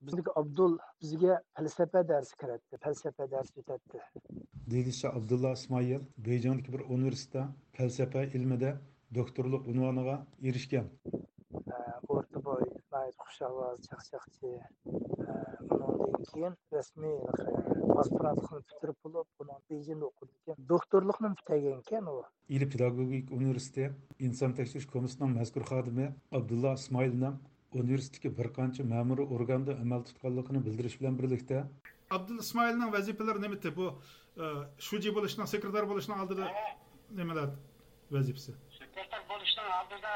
بىزنىڭكى ئابدۇل بىزگە پەلسەپە دەرسى كىرەتتى، پەلسەپە دەرسى ئۆتەتتى. دېيىلىشىچە، ئابدۇللا ئىسمائىل بېيجىڭدىكى بىر ئۇنىۋېرسىتېتتا پەلسەپە ئىلمىدە دوكتورلۇق ئۇنۋانىغا ئېرىشكەن. ئە، ئورتا بوي، ناھايىتى خۇش ئاۋاز، چاقچاقچى. ئە، ئۇنىڭدىن كېيىن رەسمىي ئاسپىرانتلىقنى پۈتتۈرۈپ بولۇپ، ئۇنىڭ بېيجىڭدا ئوقۇدىكەن. دوكتورلۇقنىمۇ پۈتتۈرگەنكەن ئۇ. ئىلى پېداگوگىكا ئۇنىۋېرسىتېتى ئىنسان تەكشۈرۈش كومىتېتىنىڭ مەزكۇر خادىمى ئابدۇللا ئىسمائىلنىڭ ئۇنىۋېرسىتېتتىكى بىر قانچە مەمۇرىي ئورگاندا ئەمەل تۇتقانلىقىنى بىلدۈرۈش بىلەن بىرلىكتە، ئابدۇل ئىسمائىلنىڭ ۋەزىپىلىرى نېمىتى؟ بۇ، ئە، شۇجى بولۇشنىڭ، سېكرېتار بولۇشنىڭ ئالدىدا نېمىلەر ۋەزىپىسى؟ سېكرېتار بولۇشنىڭ ئالدىدا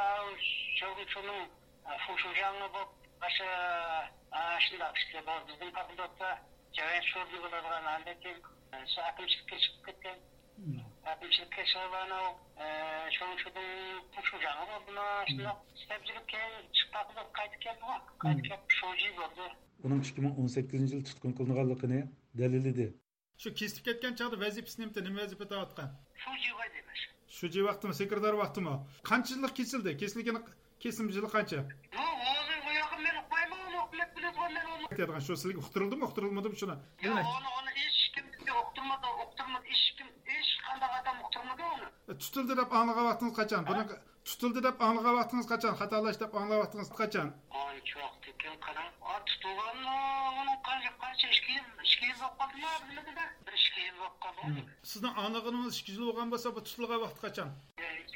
شۇنىڭ، ئە، فۇشۇجاڭى بولۇپ، ئاشۇ، ئە، شۇنداق ئىشلەپ، بىزنىڭ فاكۇلتېتتا جارايان شۇ بولىدىغان ھالەتتىن، ئە، شۇ ئاكىمچىلىككە چىقىپ كەتكەن. ئاكىمچىلىككە چىقىپ ئانا، ئە، شۇڭشۇدىن شۇجاڭغا بولدىمۇ، شۇنداق ئىستەپچىلىك كېيىن چىققان قىلىپ قايتىپ كەلدىمۇ، قايتىپ كېلىپ شۇجى بولدى. ئۇنىڭ ئىككى مىڭ ئون سەككىزىنچى يىلى تۇتقۇن قىلىنغانلىقىنى دەلىللىدى. شۇ كېسىلىپ كەتكەن چاغدا ۋەزىپىسى نېمىتى؟ نېمە ۋەزىپە ئېتىۋاتقان؟ شۇجى ۋەزىپە. شۇجى ۋاقتىمۇ، سېكرېتار ۋاقتىمۇ؟ قانچە يىللىق كېسىلدى؟ كېسىلگىنى، كېسىلىم يىلى قانچە؟ ياق، ئۇنى ئۇ ياققا مەن ئۇقمايمەن، ئۇنى ئۇقۇپ بىلىدىغان مەن ئۇنى. ئېيتىدىغان شۇ سىلىگە ئۇقتۇرۇلدىمۇ، ئۇقتۇرۇلمىدىمۇ شۇنى؟ ياق، ئۇنى، ئۇنى ھېچكىم بىزگە ئۇقتۇرمىدى، ئۇقتۇرمىدى، ھېچكىم، ھېچقانداق ئادەم ئۇقتۇرمىدى ئۇنى. ئە، تۇتۇلدى دەپ ئاڭلىغان ۋاقتىڭىز قاچان؟ ھە؟ بۇنىڭ تۇتۇلدى دەپ ئاڭلىغان ۋاقتىڭىز قاچان؟ خاتالاشتى دەپ ئاڭلىغان ۋاقتىڭىز قاچان؟ ئانچە ۋاقىتتىن كېيىن قاراڭ. ئا، تۇتۇلغان، ئۇنىڭ قانچە، قانچە، ئىككى يىل، ئىككى يىل بولۇپ قالدىمۇ، بىلمىدىم. بىر ئىككى يىل بولۇپ قالدى. مم. سىزنىڭ ئاڭلىغىنىڭىز ئىككى يىل بولغان بولسا، بۇ تۇتۇلغان ۋاقتى قاچان؟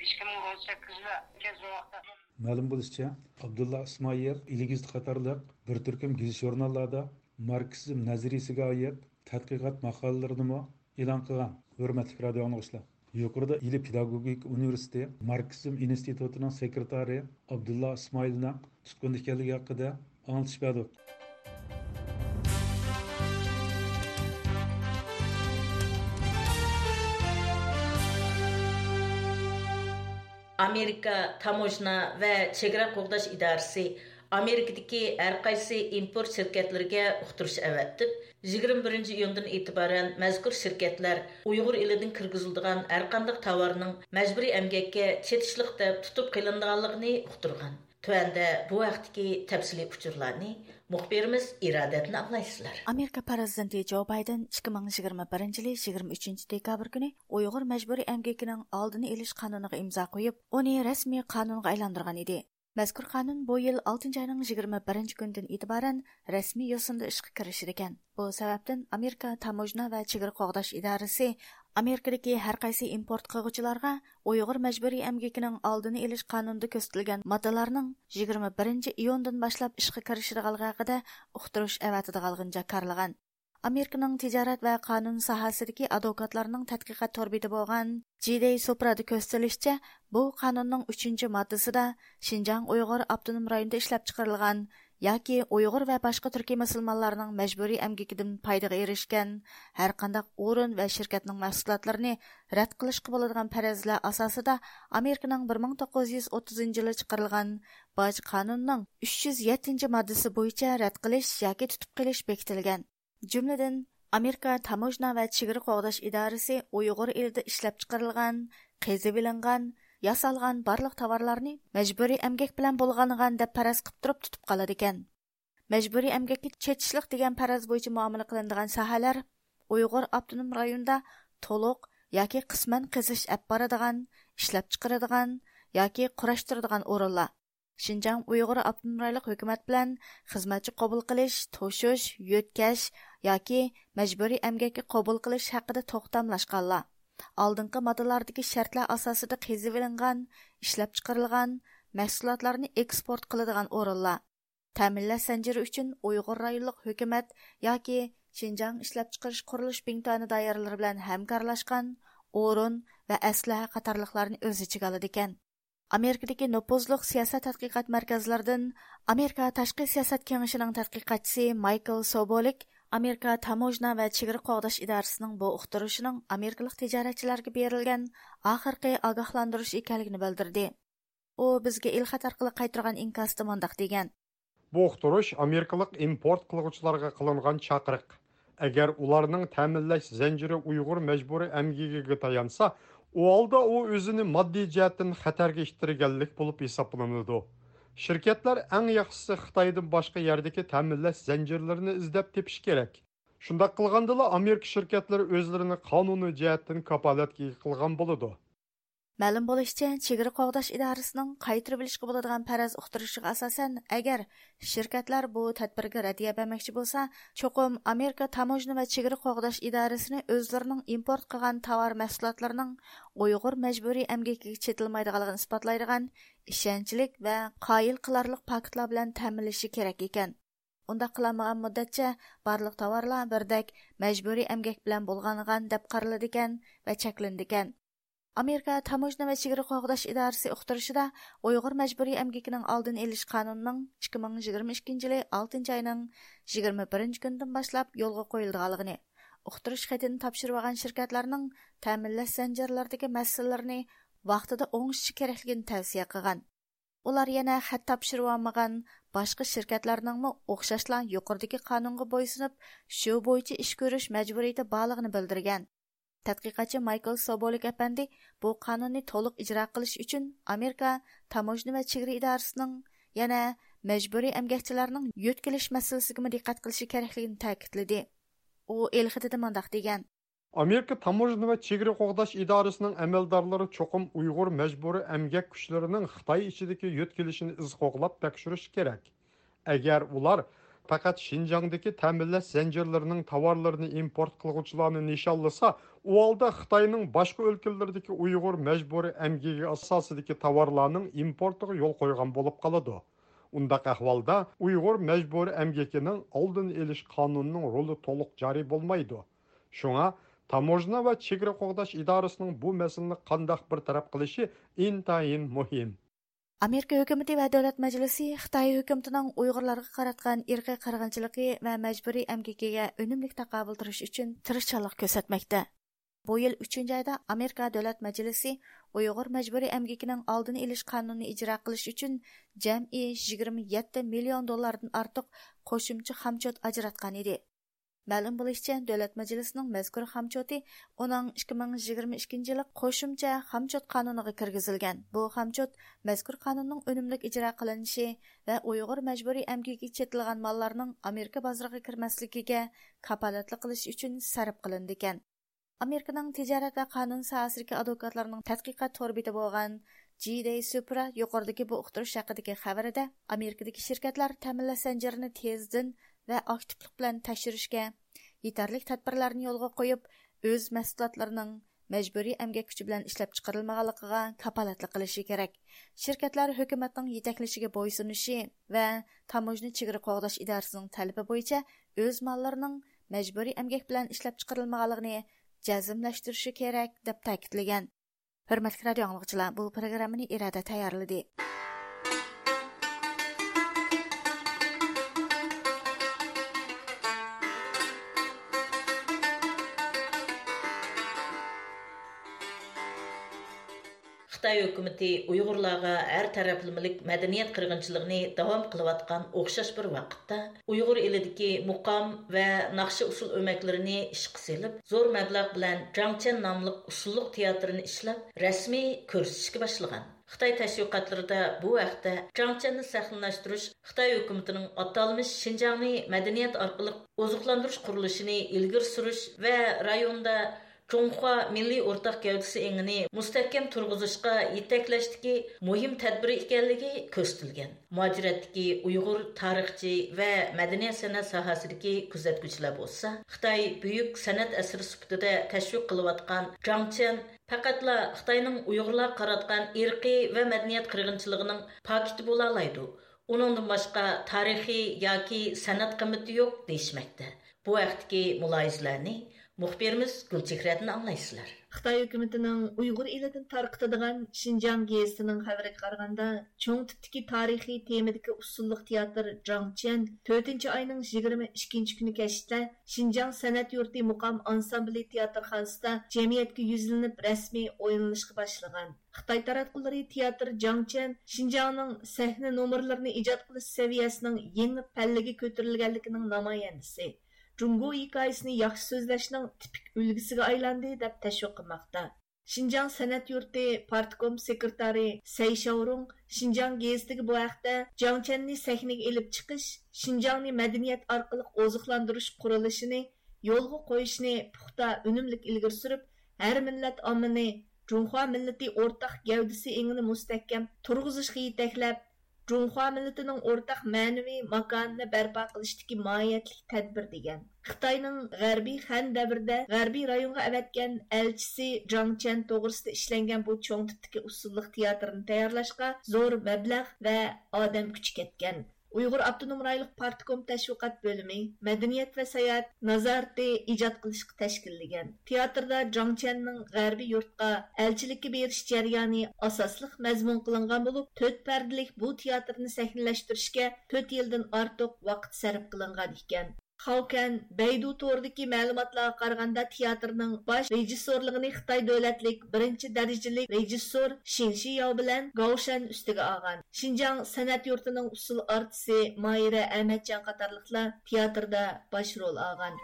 ئىككى مىڭ ئون سەككىزدە، كەچ ۋاقىتتا. مەلۇم بولۇشىچە، ئابدۇللا ئىسمائىل ئېلىگىزىت قاتارلىق بىر تۈركۈم گېزىت-ژۇرناللاردا ماركسىزم نەزەرىيىسىگە ئائىت تەتقىقات ماقالىلىرىنىمۇ ئېلان قىلغان. ھۆرمەتلىك رادىيو ئاڭلىغۇچىلار، يۇقىرىدا ئىلى پېداگوگىكا ئۇنىۋېرسىتېتى ماركسىزم ئىنستىتۇتىنىڭ سېكرېتارى ئابدۇللا ئىسمائىلنىڭ تۇتقۇندا ئىكەنلىكى ھەققىدە ئاڭلىتىش بەردۇق. ئامېرىكا تاموژنا ۋە چېگرا قوغداش ئىدارىسى ئامېرىكىدىكى ھەرقايسى ئىمپورت شىركەتلىرىگە ئۇقتۇرۇش ئەۋەتىپ، يىگىرمە بىرىنچى ئىيۇندىن ئېتىبارەن مەزكۇر شىركەتلەر ئۇيغۇر ئېلىدىن كىرگۈزۈلىدىغان ھەرقانداق تاۋارنىڭ مەجبۇرىي ئەمگەككە چېتىشلىق دەپ تۇتۇپ قېلىنىدىغانلىقىنى ئۇقتۇرغان. تۆۋەندە بۇ ھەقتىكى تەپسىلىي ئۇچۇرلارنى مۇخبىرىمىز ئىرادەدىن ئاڭلايسىلەر. ئامېرىكا پىرېزىدېنتى جو بايدېن ئىككى مىڭ يىگىرمە بىرىنچى يىلى يىگىرمە ئۈچىنچى دېكابىر كۈنى ئۇيغۇر مەجبۇرىي ئەمگىكىنىڭ ئالدىنى ئېلىش قانۇنىغا ئىمزا قويۇپ، ئۇنى رەسمىي قانۇنغا ئايلاندۇرغان ئىدى. مەزكۇر قانۇن بۇ يىل ئالتىنچى ئاينىڭ يىگىرمە بىرىنچى كۈنىدىن ئېتىبارەن رەسمىي يوسۇندا ئىشقا كىرىشىدىكەن. بۇ سەۋەبتىن ئامېرىكا تاموژنا ۋە چېگرا قوغداش ئىدارىسى ئامېرىكىدىكى ھەرقايسى ئىمپورت قىلغۇچىلارغا ئۇيغۇر مەجبۇرىي ئەمگىكىنىڭ ئالدىنى ئېلىش قانۇنىدا كۆرسىتىلگەن ماددىلارنىڭ يىگىرمە بىرىنچى ئىيۇندىن باشلاپ ئىشقا كىرىشىدىغانلىقى ھەققىدە ئۇقتۇرۇش ئەۋەتىدىغانلىقىنى جاكارلىغان. ئامېرىكىنىڭ تىجارەت ۋە قانۇن ساھەسىدىكى ئادۋوكاتلارنىڭ تەتقىقات تور بېتى بولغان جىدەي سوپرادا كۆرسىتىلىشىچە، بۇ قانۇننىڭ ئۈچىنچى ماددىسىدا شىنجاڭ ئۇيغۇر ئاپتونوم رايونىدا ئىشلەپچىقىرىلغان ياكى ئۇيغۇر ۋە باشقا تۈركىي مۇسۇلمانلارنىڭ مەجبۇرىي ئەمگىكىدىن پايدىغا ئېرىشكەن ھەرقانداق ئورۇن ۋە شىركەتنىڭ مەھسۇلاتلىرىنى رەت قىلىشقا بولىدىغان پەرەزلەر ئاساسىدا ئامېرىكىنىڭ بىر مىڭ توققۇز يۈز ئوتتۇزىنچى يىلى چىقىرىلغان باج قانۇنىنىڭ ئۈچ يۈز يەتتىنچى ماددىسى بويىچە رەت قىلىش ياكى تۇتۇپ قېلىش بېكىتىلگەن. جۈملىدىن، ئامېرىكا تاموژنا ۋە چېگرا قوغداش ئىدارىسى ئۇيغۇر ئېلىدە ئىشلەپچىقىرىلغان، قېزىۋېلىنغان، ياسالغان بارلىق تاۋارلارنى مەجبۇرىي ئەمگەك بىلەن بولغانغان دەپ پەرەز قىلىپ تۇرۇپ تۇتۇپ قالىدىكەن. مەجبۇرىي ئەمگەككە چېتىشلىق دېگەن پەرەز بويىچە مۇئامىلە قىلىنىدىغان ساھەلەر ئۇيغۇر ئاپتونوم رايونىدا تولۇق ياكى قىسمەن قېزىش ئەپ بارىدىغان، ئىشلەپچىقىرىدىغان ياكى قۇراشتۇرىدىغان ئورۇنلار، شىنجاڭ ئۇيغۇر ئاپتونوم رايونلۇق ھۆكۈمەت بىلەن خىزمەتچى قوبۇل قىلىش، توشۇش، يۆتكەش ياكى مەجبۇرىي ئەمگەككە قوبۇل قىلىش ھەققىدە توختاملاشقانلار، ئالدىنقى ماددىلاردىكى شەرتلەر ئاساسىدا قېزىۋېلىنغان، ئىشلەپچىقىرىلغان مەھسۇلاتلارنى ئېكسپورت قىلىدىغان ئورۇنلار، تەمىنلەش زەنجىرى ئۈچۈن ئۇيغۇر رايونلۇق ھۆكۈمەت ياكى شىنجاڭ ئىشلەپچىقىرىش قۇرۇلۇش بىڭتۈەنى دائىرىلىرى بىلەن ھەمكارلاشقان ئورۇن ۋە ئەسلىھە قاتارلىقلارنى ئۆز ئىچىگە ئالىدىكەن. ئامېرىكىدىكى نوپۇزلۇق سىياسەت تەتقىقات مەركەزلىرىدىن ئامېرىكا تاشقى سىياسەت كېڭىشىنىڭ تەتقىقاتچىسى مايكل سوبولىك ئامېرىكا تاموژنا ۋە چېگرا قوغداش ئىدارىسىنىڭ بۇ ئۇقتۇرۇشىنىڭ ئامېرىكىلىق تىجارەتچىلەرگە بېرىلگەن ئاخىرقى ئاگاھلاندۇرۇش ئىكەنلىكىنى بىلدۈردى. ئۇ بىزگە ئېلخەت ئارقىلىق قايتۇرغان ئىنكاسىدا مۇنداق دېگەن. بۇ ئۇقتۇرۇش ئامېرىكىلىق ئىمپورت قىلغۇچىلارغا قىلىنغان چاقىرىق. ئەگەر ئۇلارنىڭ تەمىنلەش زەنجىرى ئۇيغۇر مەجبۇرىي ئەمگىكىگە تايانسا، ئۇ ھالدا ئۇ ئۆزىنى ماددىي جەھەتتىن خەتەرگە ئىتتىرگەنلىك بولۇپ ھېسابلىنىدۇ. شىركەتلەر ئەڭ ياخشىسى خىتايدىن باشقا يەردىكى تەمىنلەش زەنجىرلىرىنى ئىزدەپ تېپىشى كېرەك. شۇنداق قىلغاندىلا ئامېرىكا شىركەتلىرى ئۆزلىرىنى قانۇنىي جەھەتتىن كاپالەتكە ئىگە قىلغان بولىدۇ. مەلۇم بولۇشىچە، چېگرا قوغداش ئىدارىسىنىڭ قايتۇرۇۋېلىشقا بولىدىغان پەرەز ئۇقتۇرۇشىغا ئاساسەن، ئەگەر شىركەتلەر بۇ تەدبىرگە رەددىيە بەرمەكچى بولسا، چوقۇم ئامېرىكا تاموژنا ۋە چېگرا قوغداش ئىدارىسىنى ئۆزلىرىنىڭ ئىمپورت قىلغان تاۋار مەھسۇلاتلىرىنىڭ ئۇيغۇر مەجبۇرىي ئەمگىكىگە چېتىلمايدىغانلىقىنى ئىسپاتلايدىغان ئىشەنچلىك ۋە قايىل قىلارلىق پاكىتلار بىلەن تەمىنلىشى كېرەك ئىكەن. ئۇنداق قىلالمىغان مۇددەتچە بارلىق تاۋارلار بىردەك مەجبۇرىي ئەمگەك بىلەن بۇلغانغان دەپ قارىلىدىكەن ۋە چەكلىنىدىكەن. ئامېرىكا تاموژنا ۋە چېگرا قوغداش ئىدارىسى ئۇقتۇرۇشىدا، ئۇيغۇر مەجبۇرىي ئەمگىكىنىڭ ئالدىنى ئېلىش قانۇنىنىڭ ئىككى مىڭ يىگىرمە ئىككىنچى يىلى ئالتىنچى ئاينىڭ يىگىرمە بىرىنچى كۈنىدىن باشلاپ يولغا قويۇلىدىغانلىقىنى، ئۇقتۇرۇش خېتىنى تاپشۇرۇۋالغان شىركەتلەرنىڭ تەمىنلەش زەنجىرلىرىدىكى مەسىلىلىرىنى ۋاقتىدا ئوڭشىشى كېرەكلىكىنى تەۋسىيە قىلغان. ئۇلار يەنە خەت تاپشۇرۇۋالمىغان باشقا شىركەتلەرنىڭمۇ ئوخشاشلا يۇقىرىدىكى قانۇنغا بويسۇنۇپ، شۇ بويىچە ئىش كۆرۈش مەجبۇرىيىتى بارلىقىنى بىلدۈرگەن. تەتقىقاتچى مايكل سوبولىك ئەپەندى بۇ قانۇننى تولۇق ئىجرا قىلىش ئۈچۈن ئامېرىكا تاموژنا ۋە چېگرا ئىدارىسىنىڭ يەنە مەجبۇرىي ئەمگەكچىلەرنىڭ يۆتكىلىش مەسىلىسىگىمۇ دىققەت قىلىشى كېرەكلىكىنى تەكىتلىدى. ئۇ ئېلخېتىدە مۇنداق دېگەن. ئامېرىكا تاموژنا ۋە چېگرا قوغداش ئىدارىسىنىڭ ئەمەلدارلىرى چوقۇم ئۇيغۇر مەجبۇرىي ئەمگەك كۈچلىرىنىڭ خىتاي ئىچىدىكى يۆتكىلىشىنى ئىز قوغلاپ تەكشۈرۈشى كېرەك. ئەگەر ئۇلار پەقەت شىنجاڭدىكى تەمىنلەش زەنجىرلىرىنىڭ تاۋارلىرىنى ئىمپورت قىلغۇچىلارنى نىشانلىسا، ئۇ ھالدا خىتاينىڭ باشقا ئۆلكىلىرىدىكى ئۇيغۇر مەجبۇرىي ئەمگىكى ئاساسىدىكى تاۋارلارنىڭ ئىمپورتىغا يول قويغان بولۇپ قالىدۇ. ئۇنداق ئەھۋالدا ئۇيغۇر مەجبۇرىي ئەمگىكىنىڭ ئالدىنى ئېلىش قانۇنىنىڭ رولى تولۇق جارى بولمايدۇ. شۇڭا تاموژنا ۋە چېگرا قوغداش ئىدارىسىنىڭ بۇ مەسىلىنى قانداق بىر تەرەپ قىلىشى ئىنتايىن مۇھىم. ئامېرىكا ھۆكۈمىتى ۋە دۆلەت مەجلىسى خىتاي ھۆكۈمىتىنىڭ ئۇيغۇرلارغا قاراتقان ئىرقىي قىرغىنچىلىقى ۋە مەجبۇرىي ئەمگىكىگە ئۈنۈملۈك تاقابىل تۇرۇش ئۈچۈن تىرىشچانلىق كۆرسەتمەكتە. بۇ يىل ئۈچىنچى ئايدا ئامېرىكا دۆلەت مەجلىسى ئۇيغۇر مەجبۇرىي ئەمگىكىنىڭ ئالدىنى ئېلىش قانۇنىنى ئىجرا قىلىش ئۈچۈن جەمئىي يىگىرمە يەتتە مىليون دوللاردىن ئارتۇق قوشۇمچە خامچوت ئاجراتقان ئىدى. مەلۇم بولۇشىچە، دۆلەت مەجلىسىنىڭ مەزكۇر خامچوتى ئۇنىڭ ئىككى مىڭ يىگىرمە ئىككىنچى يىلى قوشۇمچە خامچوت قانۇنىغا كىرگۈزۈلگەن. بۇ خامچوت مەزكۇر قانۇننىڭ ئۈنۈملۈك ئىجرا قىلىنىشى ۋە ئۇيغۇر مەجبۇرىي ئەمگىكىگە چېتىلغان ماللارنىڭ ئامېرىكا بازىرىغا كىرمەسلىكىگە كاپالەتلىك قىلىش ئۈچۈن سەرپ قىلىنىدىكەن. ئامېرىكىنىڭ تىجارەت ۋە قانۇن ساھەسىدىكى ئادۋوكاتلارنىڭ تەتقىقات تور بېتى بولغان جى دەي سۇپرا يۇقىرىدىكى بۇ ئۇقتۇرۇش ھەققىدىكى خەۋىرىدە، ئامېرىكىدىكى شىركەتلەر تەمىنلەش زەنجىرىنى تېزدىن ۋە ئاكتىپلىق بىلەن تەكشۈرۈشكە، يېتەرلىك تەدبىرلەرنى يولغا قويۇپ، ئۆز مەھسۇلاتلىرىنىڭ مەجبۇرىي ئەمگەك كۈچى بىلەن ئىشلەپچىقىرىلمىغانلىقىغا كاپالەتلىك قىلىشى كېرەك. شىركەتلەر ھۆكۈمەتنىڭ يېتەكلىشىگە بويسۇنۇشى ۋە تاموژنا چېگرا قوغداش ئىدارىسىنىڭ تەلىپى بويىچە ئۆز ماللىرىنىڭ مەجبۇرىي ئەمگەك بىلەن ئىشلەپچىقىرىلمىغانلىقىنى جەزملەشتۈرۈشى كېرەك، دەپ تەكىتلىگەن. ھۆرمەتلىك رادىئو ئاڭلىغۇچىلار، بۇ پروگراممىنى ئىرادە تەييارلىدى. خىتاي ھۆكۈمىتى ئۇيغۇرلارغا ھەر تەرەپلىمىلىك مەدەنىيەت قىرغىنچىلىقىنى داۋام قىلىۋاتقان ئوخشاش بىر ۋاقىتتا، ئۇيغۇر ئېلىدىكى مۇقام ۋە ناخشا ئۇسسۇل ئۆمەكلىرىنى ئىشقا سېلىپ، زور مەبلەغ بىلەن جاڭچيەن ناملىق ئۇسسۇللۇق تىياتىرىنى ئىشلەپ، رەسمىي كۆرسىتىشكە باشلىغان. خىتاي تەشۋىقاتلىرىدا بۇ ھەقتە جاڭچيەننى سەھنىلەشتۈرۈش خىتاي ھۆكۈمىتىنىڭ ئاتالمىش شىنجاڭنى مەدەنىيەت ئارقىلىق ئوزۇقلاندۇرۇش قۇرۇلۇشىنى ئىلگىرى سۈرۈش ۋە رايوندا جۇڭخۇا مىللىي ئورتاق گەۋدىسى ئېڭىنى مۇستەھكەم تۇرغۇزۇشقا يېتەكلەشتىكى مۇھىم تەدبىرى ئىكەنلىكى كۆرسىتىلگەن. مۇھاجىرەتتىكى ئۇيغۇر تارىخچى ۋە مەدەنىيەت سەنئەت ساھەسىدىكى كۆزەتكۈچىلەر بولسا، خىتاي بۈيۈك سەنئەت ئەسىرى سۈپىتىدە تەشۋىق قىلىۋاتقان جاڭچيەن پەقەتلا خىتاينىڭ ئۇيغۇرلارغا قاراتقان ئىرقىي ۋە مەدەنىيەت قىرغىنچىلىقىنىڭ پاكىتى بولالايدۇ. ئۇنىڭدىن باشقا تارىخىي ياكى سەنئەت قىممىتى يوق دېيىشمەكتە. بۇ ھەقتىكى مۇلاھىزىلەرنى مۇخبىرىمىز گۈلچېھرەدىن ئاڭلايسىلەر. خىتاي ھۆكۈمىتىنىڭ ئۇيغۇر ئېلىدىن تارقىتىدىغان شىنجاڭ گېزىتىنىڭ خەۋىرىگە قارىغاندا، چوڭ تىپتىكى تارىخىي تېمىدىكى ئۇسسۇللۇق تىياتىر جاڭچيەن تۆتىنچى ئاينىڭ يىگىرمە ئىككىنچى كۈنى كەچتە شىنجاڭ سەنئەت يۇرتى مۇقام ئانسامبىلى تىياتىرخانىسىدا جەمئىيەتكە يۈزلىنىپ رەسمىي ئوينىلىشقا باشلىغان. خىتاي تاراتقۇلىرى تىياتىر جاڭچيەن شىنجاڭنىڭ سەھنە نومۇرلىرىنى ئىجاد قىلىش سەۋىيەسىنىڭ يېڭى پەللىگە كۆتۈرۈلگەنلىكىنىڭ نامايەندىسى، جۇڭگو ھېكايىسىنى ياخشى سۆزلەشنىڭ تىپىك ئۈلگىسىگە ئايلاندى، دەپ تەشۋىق قىلماقتا. شىنجاڭ سەنئەت يۇرتى پارتكوم سېكرېتارى سەي شياۋرۇڭ شىنجاڭ گېزىتىگە بۇ ھەقتە جاڭچيەننى سەھنىگە ئېلىپ چىقىش، شىنجاڭنى مەدەنىيەت ئارقىلىق ئوزۇقلاندۇرۇش قۇرۇلۇشىنى يولغا قويۇشنى پۇختا، ئۈنۈملۈك ئىلگىرى سۈرۈپ، ھەر مىللەت ئاممىنى جۇڭخۇا مىللىتى ئورتاق گەۋدىسى ئېڭىنى مۇستەھكەم تۇرغۇزۇشقا يېتەكلەپ، جۇڭخۇا مىللىتىنىڭ ئورتاق مەنىۋى ماكانىنى بەرپا قىلىشتىكى ماھىيەتلىك تەدبىر، دېگەن. خىتاينىڭ غەربىي خەن دەۋرىدە غەربىي رايونغا ئەۋەتكەن ئەلچىسى جاڭ چيەن توغرىسىدا ئىشلەنگەن بۇ چوڭ تىپتىكى ئۇسسۇللۇق تىياتىرنى تەييارلاشقا زور مەبلەغ ۋە ئادەم كۈچى كەتكەن. ئۇيغۇر ئاپتونوم رايونلۇق پارتكوم تەشۋىقات بۆلۈمى مەدەنىيەت ۋە ساياھەت نازارىتى ئىجاد قىلىشقا تەشكىللىگەن. تىياتىردا جاڭ چيەننىڭ غەربىي يۇرتقا ئەلچىلىككە بېرىش جەريانى ئاساسلىق مەزمۇن قىلىنغان بولۇپ، تۆت پەردىلىك بۇ تىياتىرنى سەھنىلەشتۈرۈشكە تۆت يىلدىن ئارتۇق ۋاقىت سەرپ قىلىنغان ئىكەن. خاۋكەن بەيدۇ تورىدىكى مەلۇماتلارغا قارىغاندا، تىياتىرنىڭ باش رېژىسسورلۇقىنى خىتاي دۆلەتلىك بىرىنچى دەرىجىلىك رېژىسسور شىن شىياۋ بىلەن گاۋ شەن ئۈستىگە ئالغان. شىنجاڭ سەنئەت يۇرتىنىڭ ئۇسسۇل ئارتىسى ماھىرە ئەمەتجان قاتارلىقلار تىياتىردا باش رول ئالغان.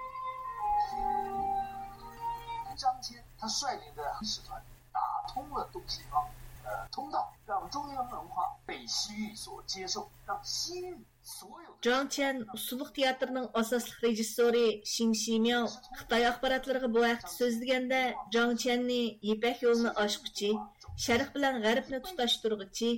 张骞他率领的使团打通了东西方，呃，通道，让中原文化被西域所接受，让西域所有的 جاڭ چيەن ئۇسسۇللۇق تىياتىرىنىڭ ئاساسلىق رېژىسسورى شىڭ شىمياۋ خىتاي ئاخباراتلىرىغا بۇ ھەقتە سۆزلىگەندە، جاڭ چيەننى يىپەك يولىنى ئاچقۇچى، شەرق بىلەن غەربنى تۇتاشتۇرغۇچى،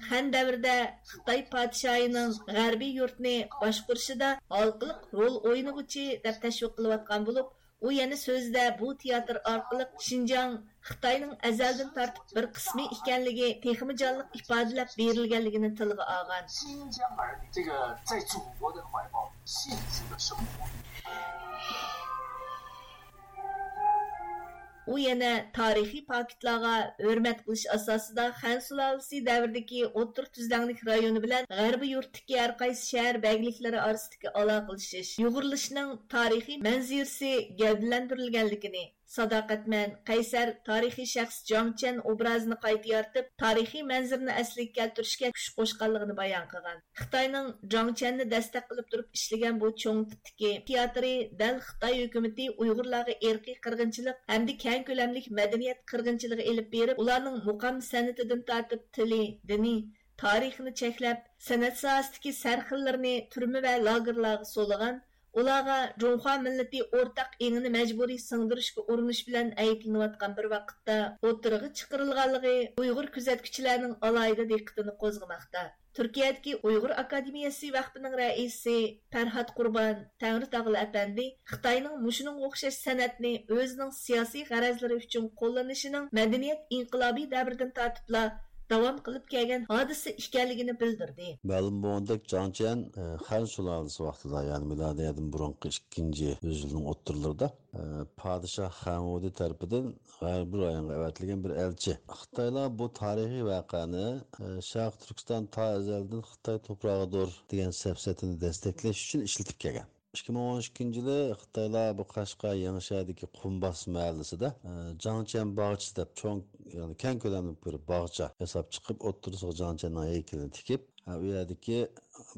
خەن دەۋرىدە خىتاي پادىشاھىنىڭ غەربىي يۇرتنى باشقۇرۇشىدا ھالقىلىق رول ئوينىغۇچى دەپ تەشۋىق قىلىۋاتقان بولۇپ، ئۇ يەنە سۆزىدە بۇ تىياتىر ئارقىلىق شىنجاڭ خىتاينىڭ ئەزەلدىن تارتىپ بىر قىسمى ئىكەنلىكى تېخىمۇ جانلىق ئىپادىلەپ بېرىلگەنلىكىنى تىلغا ئالغان. 新疆人这个在祖国的怀抱幸福的生活。 ئۇ يەنە تارىخىي پاكىتلارغا ھۆرمەت قىلىش ئاساسىدا خەن سۇلالىسى دەۋرىدىكى ئوتتۇرا تۈزلەڭلىك رايونى بىلەن غەربىي يۇرتتىكى ھەر قايسى شەھەر بەگلىكلىرى ئارىسىدىكى ئالاقىلىشىش، يۇغۇرۇلۇشنىڭ تارىخىي مەنزىرىسى گەۋدىلەندۈرۈلگەنلىكىنى، ساداقەتمەن، قەيسەر، تارىخىي شەخس جاڭ چيەن ئوبرازىنى قايتا يارىتىپ، تارىخىي مەنزىرىنى ئەسلىگە كەلتۈرۈشكە كۈچ قوشقانلىقىنى بايان قىلغان. خىتاينىڭ جاڭ چيەننى دەستەك قىلىپ تۇرۇپ ئىشلىگەن بۇ چوڭ تىپتىكى تىياتىرى دەل خىتاي ھۆكۈمىتى ئۇيغۇرلارغا ئىرقىي قىرغىنچىلىق ھەمدە كەڭ كۆلەملىك مەدەنىيەت قىرغىنچىلىقى ئېلىپ بېرىپ، ئۇلارنىڭ مۇقام سەنئىتىدىن تارتىپ تىلى، دىنى، تارىخىنى چەكلەپ، سەنئەت ساھەسىدىكى سەرخىللىرىنى تۈرمە ۋە لاگېرلارغا سولىغان، ئۇلارغا جۇڭخۇا مىللىتى ئورتاق ئېڭىنى مەجبۇرىي سىڭدۈرۈشكە ئۇرۇنۇش بىلەن ئەيىبلىنىۋاتقان بىر ۋاقىتتا ئوتتۇرىغا چىقىرىلغانلىقى ئۇيغۇر كۆزەتكۈچىلەرنىڭ ئالاھىدە دىققىتىنى قوزغىماقتا. تۈركىيەدىكى ئۇيغۇر ئاكادېمىيەسى ۋەقپىنىڭ رەئىسى پەرھات قۇربان تەڭرىتاغلى ئەپەندى خىتاينىڭ مۇشۇنىڭغا ئوخشاش سەنئەتنى ئۆزىنىڭ سىياسىي غەرەزلىرى ئۈچۈن قوللىنىشىنىڭ مەدەنىيەت ئىنقىلابى دەۋرىدىن تارتىپلا داۋام قىلىپ كەلگەن ھادىسە ئىكەنلىكىنى بىلدۈردى. مەلۇم بولغاندەك، جاڭ چيەن، ئە، خەن سۇلالىسى ۋاقتىدا، يەنى مىلادىيەدىن بۇرۇنقى ئىككىنچى يۈز يىلنىڭ ئوتتۇرىلىرىدا، ئە، پادىشاھ خەن ۋۇدى تەرىپىدىن غەربىي رايونغا ئەۋەتىلگەن بىر ئەلچى. خىتايلار بۇ تارىخىي ۋەقەنى، ئە، شەرقىي تۈركىستان تا ئەزەلدىن خىتاي توپراغىدۇر دېگەن سەپسەتىنى دەستەكلەش ئۈچۈن ئىشلىتىپ كەلگەن. ئىككى مىڭ ئون ئىككىنچى يىلى خىتايلار بۇ قەشقەر يېڭىشەھەردىكى قۇمباس مەھەللىسىدە، ئە، جاڭ چيەن باغچىسى دەپ چوڭ، يەنى كەڭ كۆلەملىك بىر باغچە ياساپ چىقىپ، ئوتتۇرىسىغا جاڭ چيەننىڭ ھەيكىلىنى تىكىپ، ئە، ئۇ يەردىكى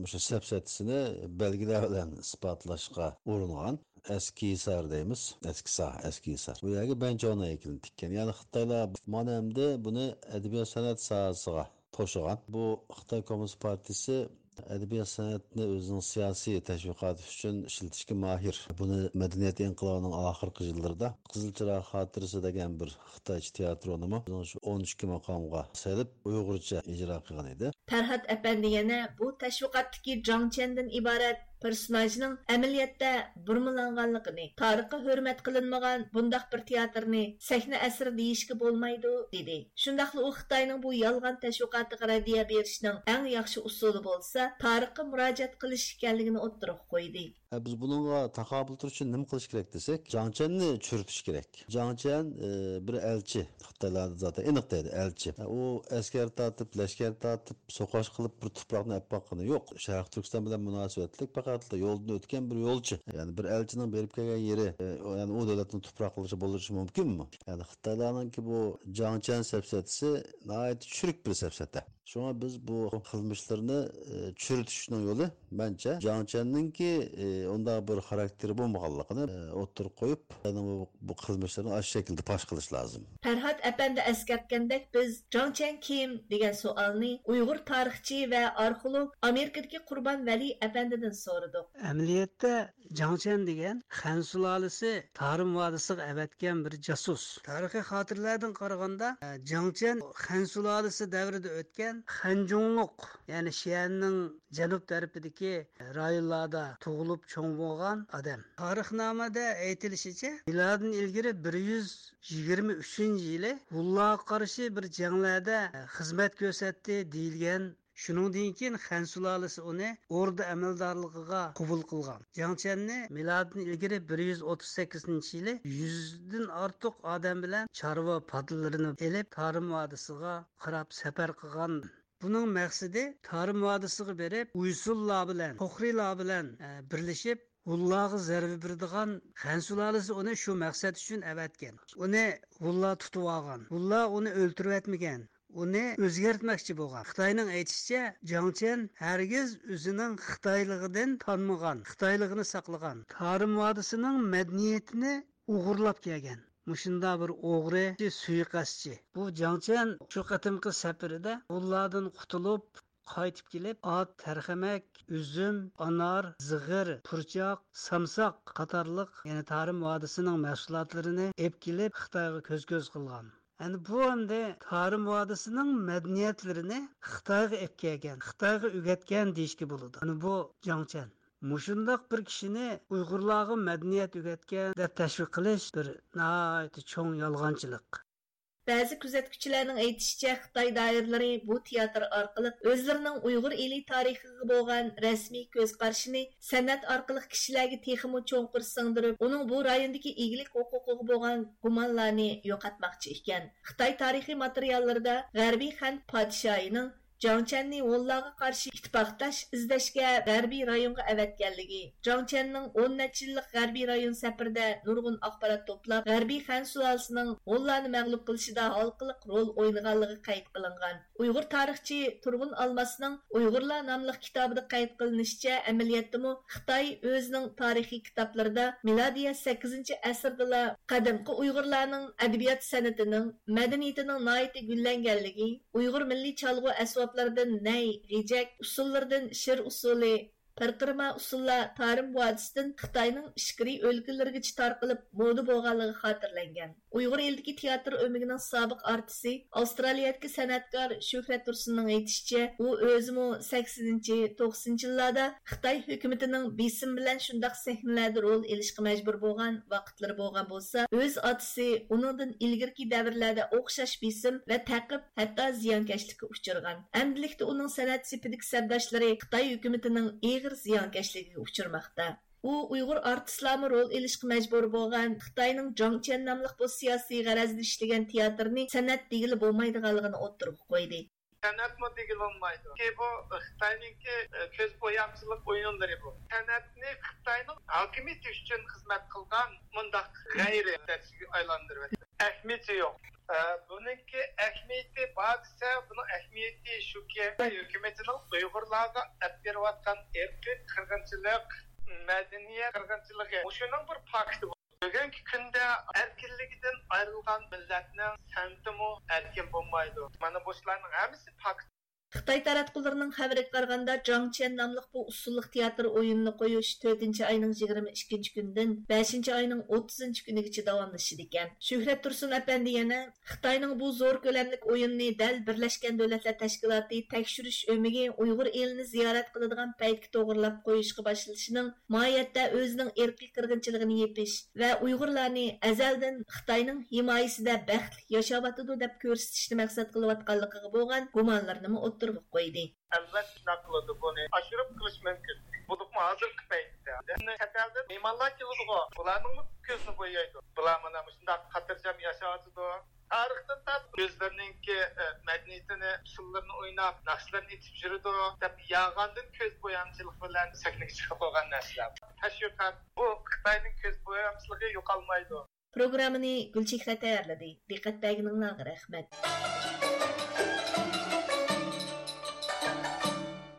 مۇشۇ سەپسەتىسىنى بەلگىلەر بىلەن ئىسپاتلاشقا ئۇرۇنغان. ئەسكى ھىسار دەيمىز، ئەسكى ساھ، ئەسكى ھىسار. بۇ يەرگە بەنچاۋنىڭ ھەيكىلىنى تىككەن. يەنى خىتايلار مانا ئەمدى بۇنى ئەدەبىيات سەنئەت ساھەسىغا توشۇغان. بۇ خىتاي كوممۇنىست پارتىيىسى ئەدەبىيات سەنئەتنى ئۆزىنىڭ سىياسىي تەشۋىقاتى ئۈچۈن ئىشلىتىشكە ماھىر. بۇنى مەدەنىيەت ئىنقىلابىنىڭ ئاخىرقى يىللىرىدا قىزىل چىراغ خاتىرىسى دېگەن بىر خىتايچە تىياتىرونىمۇ ئۆزىنىڭ شۇ ئون ئىككى ماقامغا سېلىپ، ئۇيغۇرچە ئىجرا قىلغان ئىدى. پەرھات ئەپەندى يەنە بۇ تەشۋىقاتتىكى جاڭ چيەندىن ئىبارەت پېرسوناژنىڭ ئەمەلىيەتتە بۇرمىلانغانلىقىنى، تارىخقا ھۆرمەت قىلىنمىغان بۇنداق بىر تىياتىرنى سەھنە ئەسىرى دېيىشكە بولمايدۇ، دېدى. شۇنداقلا ئۇ خىتاينىڭ بۇ يالغان تەشۋىقاتىغا رەددىيە بېرىشنىڭ ئەڭ ياخشى ئۇسۇلى بولسا، تارىخقا مۇراجىئەت قىلىش ئىكەنلىكىنى ئوتتۇرىغا قويدى. ئە، بىز بۇنىڭغا تاقابىل تۇرۇش ئۈچۈن نېمە قىلىش كېرەك دېسەك، جاڭ چيەننى چۈرۈتۈش كېرەك. جاڭ چيەن، ئە، بىر ئەلچى، خىتايلاردا زاتەن ئېنىق دەيدۇ، ئەلچى. ئە، ئۇ ئەسكەر تارتىپ، لەشكەر تارتىپ، سوقۇش قىلىپ بىر تۇپراقنى ئەپ باققىنى يوق. شەرقىي تۈركىستان بىلەن مۇناسىۋەتلىك پەقەتلا يولدىن ئۆتكەن بىر يولچى. يەنى بىر ئەلچىنىڭ بېرىپ كەلگەن يېرى، ئە، ئۇ، يەنى ئۇ دۆلەتنىڭ تۇپراقلىرىچە بولۇشى مۇمكىنمۇ؟ يەنى خىتايلارنىڭكى بۇ جاڭ چيەن سەپسەتىسى ناھايىتى چۈرۈك بىر سەپسەتە. شۇڭا بىز بۇ قىلمىشلىرىنى، ئى، چۈرۈتۈشنىڭ يولى، مەنچە، جاڭ چيەننىڭكى، ئى، ئۇنداق بىر خاراكتېرى بولمىغانلىقىنى، ئى، ئوتتۇرىغا قويۇپ، ئۇنىڭ بۇ، بۇ قىلمىشلىرىنى ئاشۇ شەكىلدە پاش قىلىش لازىم. پەرھات ئەپەندى ئەسكەرتكەندەك، بىز جاڭ چيەن كىم دېگەن سوئالنى ئۇيغۇر تارىخچى ۋە ئارخېئولوگ، ئامېرىكىدىكى قۇربان ۋەلى ئەپەندىدىن سورىدۇق. ئەمەلىيەتتە، جاڭ چيەن دېگەن خەن سۇلالىسى تارىم ۋادىسىغا ئەۋەتكەن بىر جاسۇس. تارىخىي خاتىرىلەردىن قارىغاندا، جاڭ چيەن خەن سۇلالىسى دەۋرىدە ئۆتكەن خەنجۇڭلۇق، يەنى شىئەننىڭ جەنۇب تەرىپىدىكى رايونلاردا تۇغۇلۇپ چوڭ بولغان ئادەم. تارىخنامىدە ئېيتىلىشىچە، مىلادىن ئىلگىرى بىر يۈز يىگىرمە ئۈچىنچى يىلى ھۇنلارغا قارشى بىر جەڭلەردە خىزمەت كۆرسەتتى دېيىلگەن شۇنىڭدىن كېيىن خەن سۇلالىسى ئۇنى ئوردا ئەمەلدارلىقىغا قوبۇل قىلغان. جاڭ چيەننى مىلادىدىن ئىلگىرى بىر يۈز ئوتتۇز سەككىزىنچى يىلى يۈزدىن ئارتۇق ئادەم بىلەن چارۋا پادىلىرىنى ئېلىپ، تارىم ۋادىسىغا قاراپ سەپەر قىلغان. بۇنىڭ مەقسىتى تارىم ۋادىسىغا بېرىپ، ئۇيسۇنلار بىلەن، خوخرىلار بىلەن، ئە، بىرلىشىپ، ھۇنلارغا زەربە بېرىدىغان. خەن سۇلالىسى ئۇنى شۇ مەقسەت ئۈچۈن ئەۋەتكەن. ئۇنى ھۇنلار تۇتۇۋالغان. ھۇنلار ئۇنى ئۆلتۈرۈۋەتمىگەن. ئۇنى ئۆزگەرتمەكچى بولغان. خىتاينىڭ ئېيتىشىچە، جاڭ چيەن ھەرگىز ئۆزىنىڭ خىتايلىقىدىن تانمىغان، خىتايلىقىنى ساقلىغان، تارىم ۋادىسىنىڭ مەدەنىيىتىنى ئوغرىلاپ كەلگەن مۇشۇنداق بىر ئوغرى، سۇيىقەستچى. بۇ جاڭ چيەن شۇ قېتىمقى سەپىرىدە ھۇنلاردىن قۇتۇلۇپ، قايتىپ كېلىپ، ئات، تەرخەمەك، ئۈزۈم، ئانار، زىغىر، پۇرچاق، سامساق قاتارلىق، يەنى تارىم ۋادىسىنىڭ مەھسۇلاتلىرىنى ئېلىپ كېلىپ، خىتايغا كۆز-كۆز قىلغان. ئەنە بۇ ئەمدى تارىم ۋادىسىنىڭ مەدەنىيەتلىرىنى خىتايغا ئېلىپ كەلگەن، خىتايغا ئۆگەتكەن دېيىشكە بولىدۇ. ئەنە بۇ جاڭ چيەن. مۇشۇنداق بىر كىشىنى ئۇيغۇرلارغا مەدەنىيەت ئۆگەتكەن دەپ تەشۋىق قىلىش بىر ناھايىتى چوڭ يالغانچىلىق. بەزى كۆزەتكۈچىلەرنىڭ ئېيتىشىچە، خىتاي دائىرىلىرى بۇ تىياتىر ئارقىلىق ئۆزلىرىنىڭ ئۇيغۇر ئېلى تارىخىغا بولغان رەسمىي كۆز قارىشىنى سەنئەت ئارقىلىق كىشىلەرگە تېخىمۇ چوڭقۇر سىڭدۈرۈپ، ئۇنىڭ بۇ رايوندىكى ئىگىلىك ھوقۇقىغا بولغان گۇمانلارنى يوقاتماقچى ئىكەن. خىتاي تارىخىي ماتېرىياللىرىدا غەربىي خەن پادىشاھىنىڭ جاڭ چيەننى ھونلارغا قارشى ئىتتىپاقداش ئىزدەشكە غەربىي رايونغا ئەۋەتكەنلىكى، جاڭ چيەننىڭ ئون نەچچە يىللىق غەربىي رايون سەپىرىدە نۇرغۇن ئاخبارات توپلاپ، غەربىي خەن سۇلالىسىنىڭ ھونلارنى مەغلۇپ قىلىشىدا ھالقىلىق رول ئوينىغانلىقى قەيت قىلىنغان. ئۇيغۇر تارىخچى تۇرغۇن ئالماسنىڭ ئۇيغۇرلار ناملىق كىتابىدا قەيت قىلىنىشىچە، ئەمەلىيەتتىمۇ خىتاي ئۆزىنىڭ تارىخىي كىتابلىرىدا مىلادىيە سەككىزىنچى ئەسىردىلا قەدىمكى ئۇيغۇرلارنىڭ ئەدەبىيات سەنئىتىنىڭ، مەدەنىيىتىنىڭ ناھايىتى گۈللەنگەنلىكى، ئۇيغۇر مىللىي چالغۇ ئەسۋابلىرىدىن نەي، غېجەك، ئۇسسۇللىرىدىن شىر ئۇسسۇلى، پىرقىرىما ئۇسسۇللار تارىم ۋادىسىدىن خىتاينىڭ ئىچكىرى ئۆلكىلىرىگىچە تارقىلىپ مودا بولغانلىقى خاتىرىلەنگەن. ئۇيغۇر ئېلىدىكى تىياتىر ئۆمىكىنىڭ سابىق ئارتىسى، ئاۋسترالىيەدىكى سەنئەتكار شۆھرەت تۇرسۇننىڭ ئېيتىشىچە، ئۇ ئۆزىمۇ سەكسىنىنچى، توقسىنىنچى يىللاردا خىتاي ھۆكۈمىتىنىڭ بېسىمى بىلەن شۇنداق سەھنىلەردە رول ئېلىشقا مەجبۇر بولغان ۋاقىتلىرى بولغان بولسا، ئۆز ئاتىسى ئۇنىڭدىن ئىلگىرىكى دەۋرلەردە ئوخشاش بېسىم ۋە تەقىب، ھەتتا زىيانكەشلىككە ئۇچرىغان. ئەمدىلىكتە ئۇنىڭ سەنئەت سېپىدىكى سەپداشلىرى خىتاي ھۆكۈمىتىنىڭ ئېغىر زىيانكەشلىكىگە ئۇچرىماقتا. ئۇ ئۇيغۇر ئارتىسلارمۇ رول ئېلىشقا مەجبۇر بولغان خىتاينىڭ جاڭ چيەن ناملىق بۇ سىياسىي غەرەزدە ئىشلىگەن تىياتىرنى سەنئەت دېگىلى بولمايدىغانلىقىنى ئوتتۇرىغا قويدى. سەنئەتمۇ دېگىلى بولمايدۇ. چۈنكى بۇ خىتاينىڭكى، ئە، كۆز بويامچىلىق ئويۇنلىرى بۇ. سەنئەتنى خىتاينىڭ ھاكىمىيىتى ئۈچۈن خىزمەت قىلغان مۇنداق غەيرىي دەرسكە ئايلاندۇرۇۋەتتى. ئەھمىيىتى يوق. ئە، بۇنىڭكى ئەھمىيىتى بار دېسە، بۇنىڭ ئەھمىيىتى شۇكى، ھۆكۈمىتىنىڭ ئۇيغۇرلارغا ئەپ بېرىۋاتقان ئىرقىي قىرغىنچىلىق، مەدەنىيەت قىرغىنچىلىقى، مۇشۇنىڭ بىر پاكتى بۇ. بۈگۈنكى كۈندە ئەركىنلىكىدىن ئايرىلغان مىللەتنىڭ سەنئىتىمۇ ئەركىن بولمايدۇ. مانا بۇ ئىشلارنىڭ ھەممىسى پاكىت. خىتاي تاراتقۇلىرىنىڭ خەۋىرىگە قارىغاندا، جاڭ چيەن ناملىق بۇ ئۇسسۇللۇق تىياتىر ئويۇنىنى قويۇش تۆتىنچى ئاينىڭ يىگىرمە ئىككىنچى كۈنىدىن بەشىنچى ئاينىڭ ئوتتۇزىنچى كۈنىگىچە داۋاملىشىدىكەن. شۆھرەت تۇرسۇن ئەپەندى يەنە، خىتاينىڭ بۇ زور كۆلەملىك ئويۇنىنى دەل بىرلەشكەن دۆلەتلەر تەشكىلاتى تەكشۈرۈش ئۆمىكى ئۇيغۇر ئېلىنى زىيارەت قىلىدىغان پەيتكە توغرىلاپ قويۇشقا باشلىشىنىڭ ماھىيەتتە ئۆزىنىڭ ئىرقىي قىرغىنچىلىقىنى يېپىش ۋە ئۇيغۇرلارنى ئەزەلدىن خىتاينىڭ ھىمايىسىدە بەختلىك ياشاۋاتىدۇ دەپ كۆرسىتىشنى مەقسەت قىلىۋاتقانلىقىغا بولغان گۇمانلىرىنىمۇ ئوتتۇرىغا قويدى. ئەلۋەتتە، شۇنداق قىلىدۇ. بۇنى ئاشۇرۇپ قىلىش مۇمكىن. بولۇپمۇ ھازىرقى پەيتتە چەت ئەلدىن مېھمانلار كېلىدىغۇ، بۇلارنىڭمۇ كۆزىنى بويايدۇ. بۇلار مانا مۇشۇنداق خاتىرجەم ياشاۋاتىدۇ. تارىختىن تارتىپ ئۆزلىرىنىڭكى، ئە، مەدەنىيىتىنى، ئۇسسۇللىرىنى ئويناپ، ناخشىلىرىنى ئېيتىپ يۈرىدۇ دەپ يالغاندىن كۆز بويامچىلىق بىلەن سەھنىگە چىقىپ قالغان نەرسىلەر. تەشۋىقات، بۇ خىتاينىڭ كۆز بويامچىلىقى يوقالمايدۇ. پروگراممىنى گۈلچېھرە تەييارلىدى. دىققەت بەرگىنىڭلارغا رەھمەت.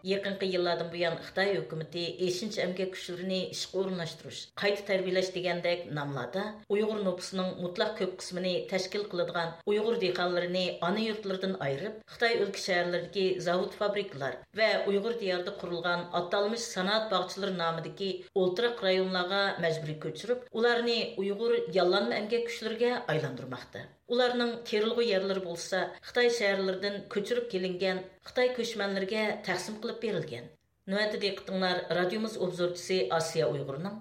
يېقىنقى يىللاردىن بۇيان، خىتاي ھۆكۈمىتى ئېشىنچا ئەمگەك كۈچلىرىنى ئىشقا ئورۇنلاشتۇرۇش، قايتا تەربىيەلەش دېگەندەك ناملاردا ئۇيغۇر نوپۇسىنىڭ مۇتلەق كۆپ قىسمىنى تەشكىل قىلىدىغان ئۇيغۇر دېھقانلىرىنى ئانا يۇرتلىرىدىن ئايرىپ، خىتاي ئۆلكە شەھەرلىرىدىكى زاۋۇت، فابرىكىلار ۋە ئۇيغۇر دىيارىدا قۇرۇلغان ئاتالمىش سانائەت باغچىلىرى نامىدىكى ئولتۇراق رايونلارغا مەجبۇرىي كۆچۈرۈپ، ئۇلارنى ئۇيغۇر ياللانما ئەمگەك كۈچلىرىگە ئايلاندۇرماقتا. ئۇلارنىڭ تېرىلغۇ يەرلىرى بولسا خىتاي شەھەرلىرىدىن كۆچۈرۈپ كېلىنگەن خىتاي كۆچمەنلىرىگە تەقسىم قىلىپ بېرىلگەن. نۆۋەتتە دىققىتىڭلار رادىيومىز ئوبزورچىسى ئاسىيا ئۇيغۇرنىڭ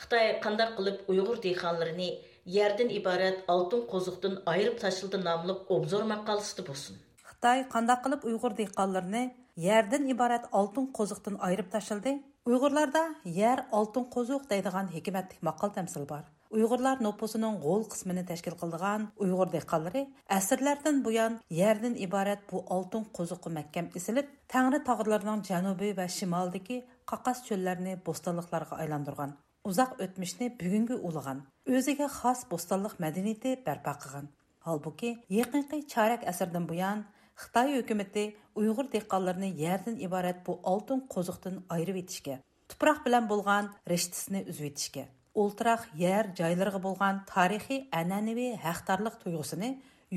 «خىتاي قانداق قىلىپ ئۇيغۇر دېھقانلىرىنى يەردىن ئىبارەت ئالتۇن قوزۇقتىن ئايرىپ تاشلىدى» ناملىق ئوبزور ماقالىسىدە بولسۇن. خىتاي قانداق قىلىپ ئۇيغۇر دېھقانلىرىنى يەردىن ئىبارەت ئالتۇن قوزۇقتىن ئايرىپ تاشلىدى. ئۇيغۇرلاردا يەر ئالتۇن قوزۇق دەيدىغان ھېكمەتلىك ماقال-تەمسىل بار. ئۇيغۇرلار نوپۇسىنىڭ غول قىسمىنى تەشكىل قىلىدىغان ئۇيغۇر دېھقانلىرى ئەسىرلەردىن بۇيان يەردىن ئىبارەت بۇ ئالتۇن قوزۇققا مەھكەم ئېسىلىپ، تەڭرى تاغلىرىنىڭ جەنۇبى ۋە شىمالىدىكى قاقاس چۆللەرنى بوستانلىقلارغا ئايلاندۇرغان. ئۇزاق ئۆتمۈشنى بۈگۈنگە ئۇلىغان، ئۆزىگە خاس بوستانلىق مەدەنىيىتى بەرپا قىلغان. ھالبۇكى، يېقىنقى چارەك ئەسىردىن بۇيان خىتاي ھۆكۈمىتى ئۇيغۇر دېھقانلىرىنى يەردىن ئىبارەت بۇ ئالتۇن قوزۇقتىن ئايرىۋېتىشكە، تۇپراق بىلەن بولغان رىشتىسىنى ئۈزۈۋېتىشكە، ئولتۇراق يەر جايلىرىغا بولغان تارىخىي ئەنئەنىۋى ھەقدارلىق تۇيغۇسىنى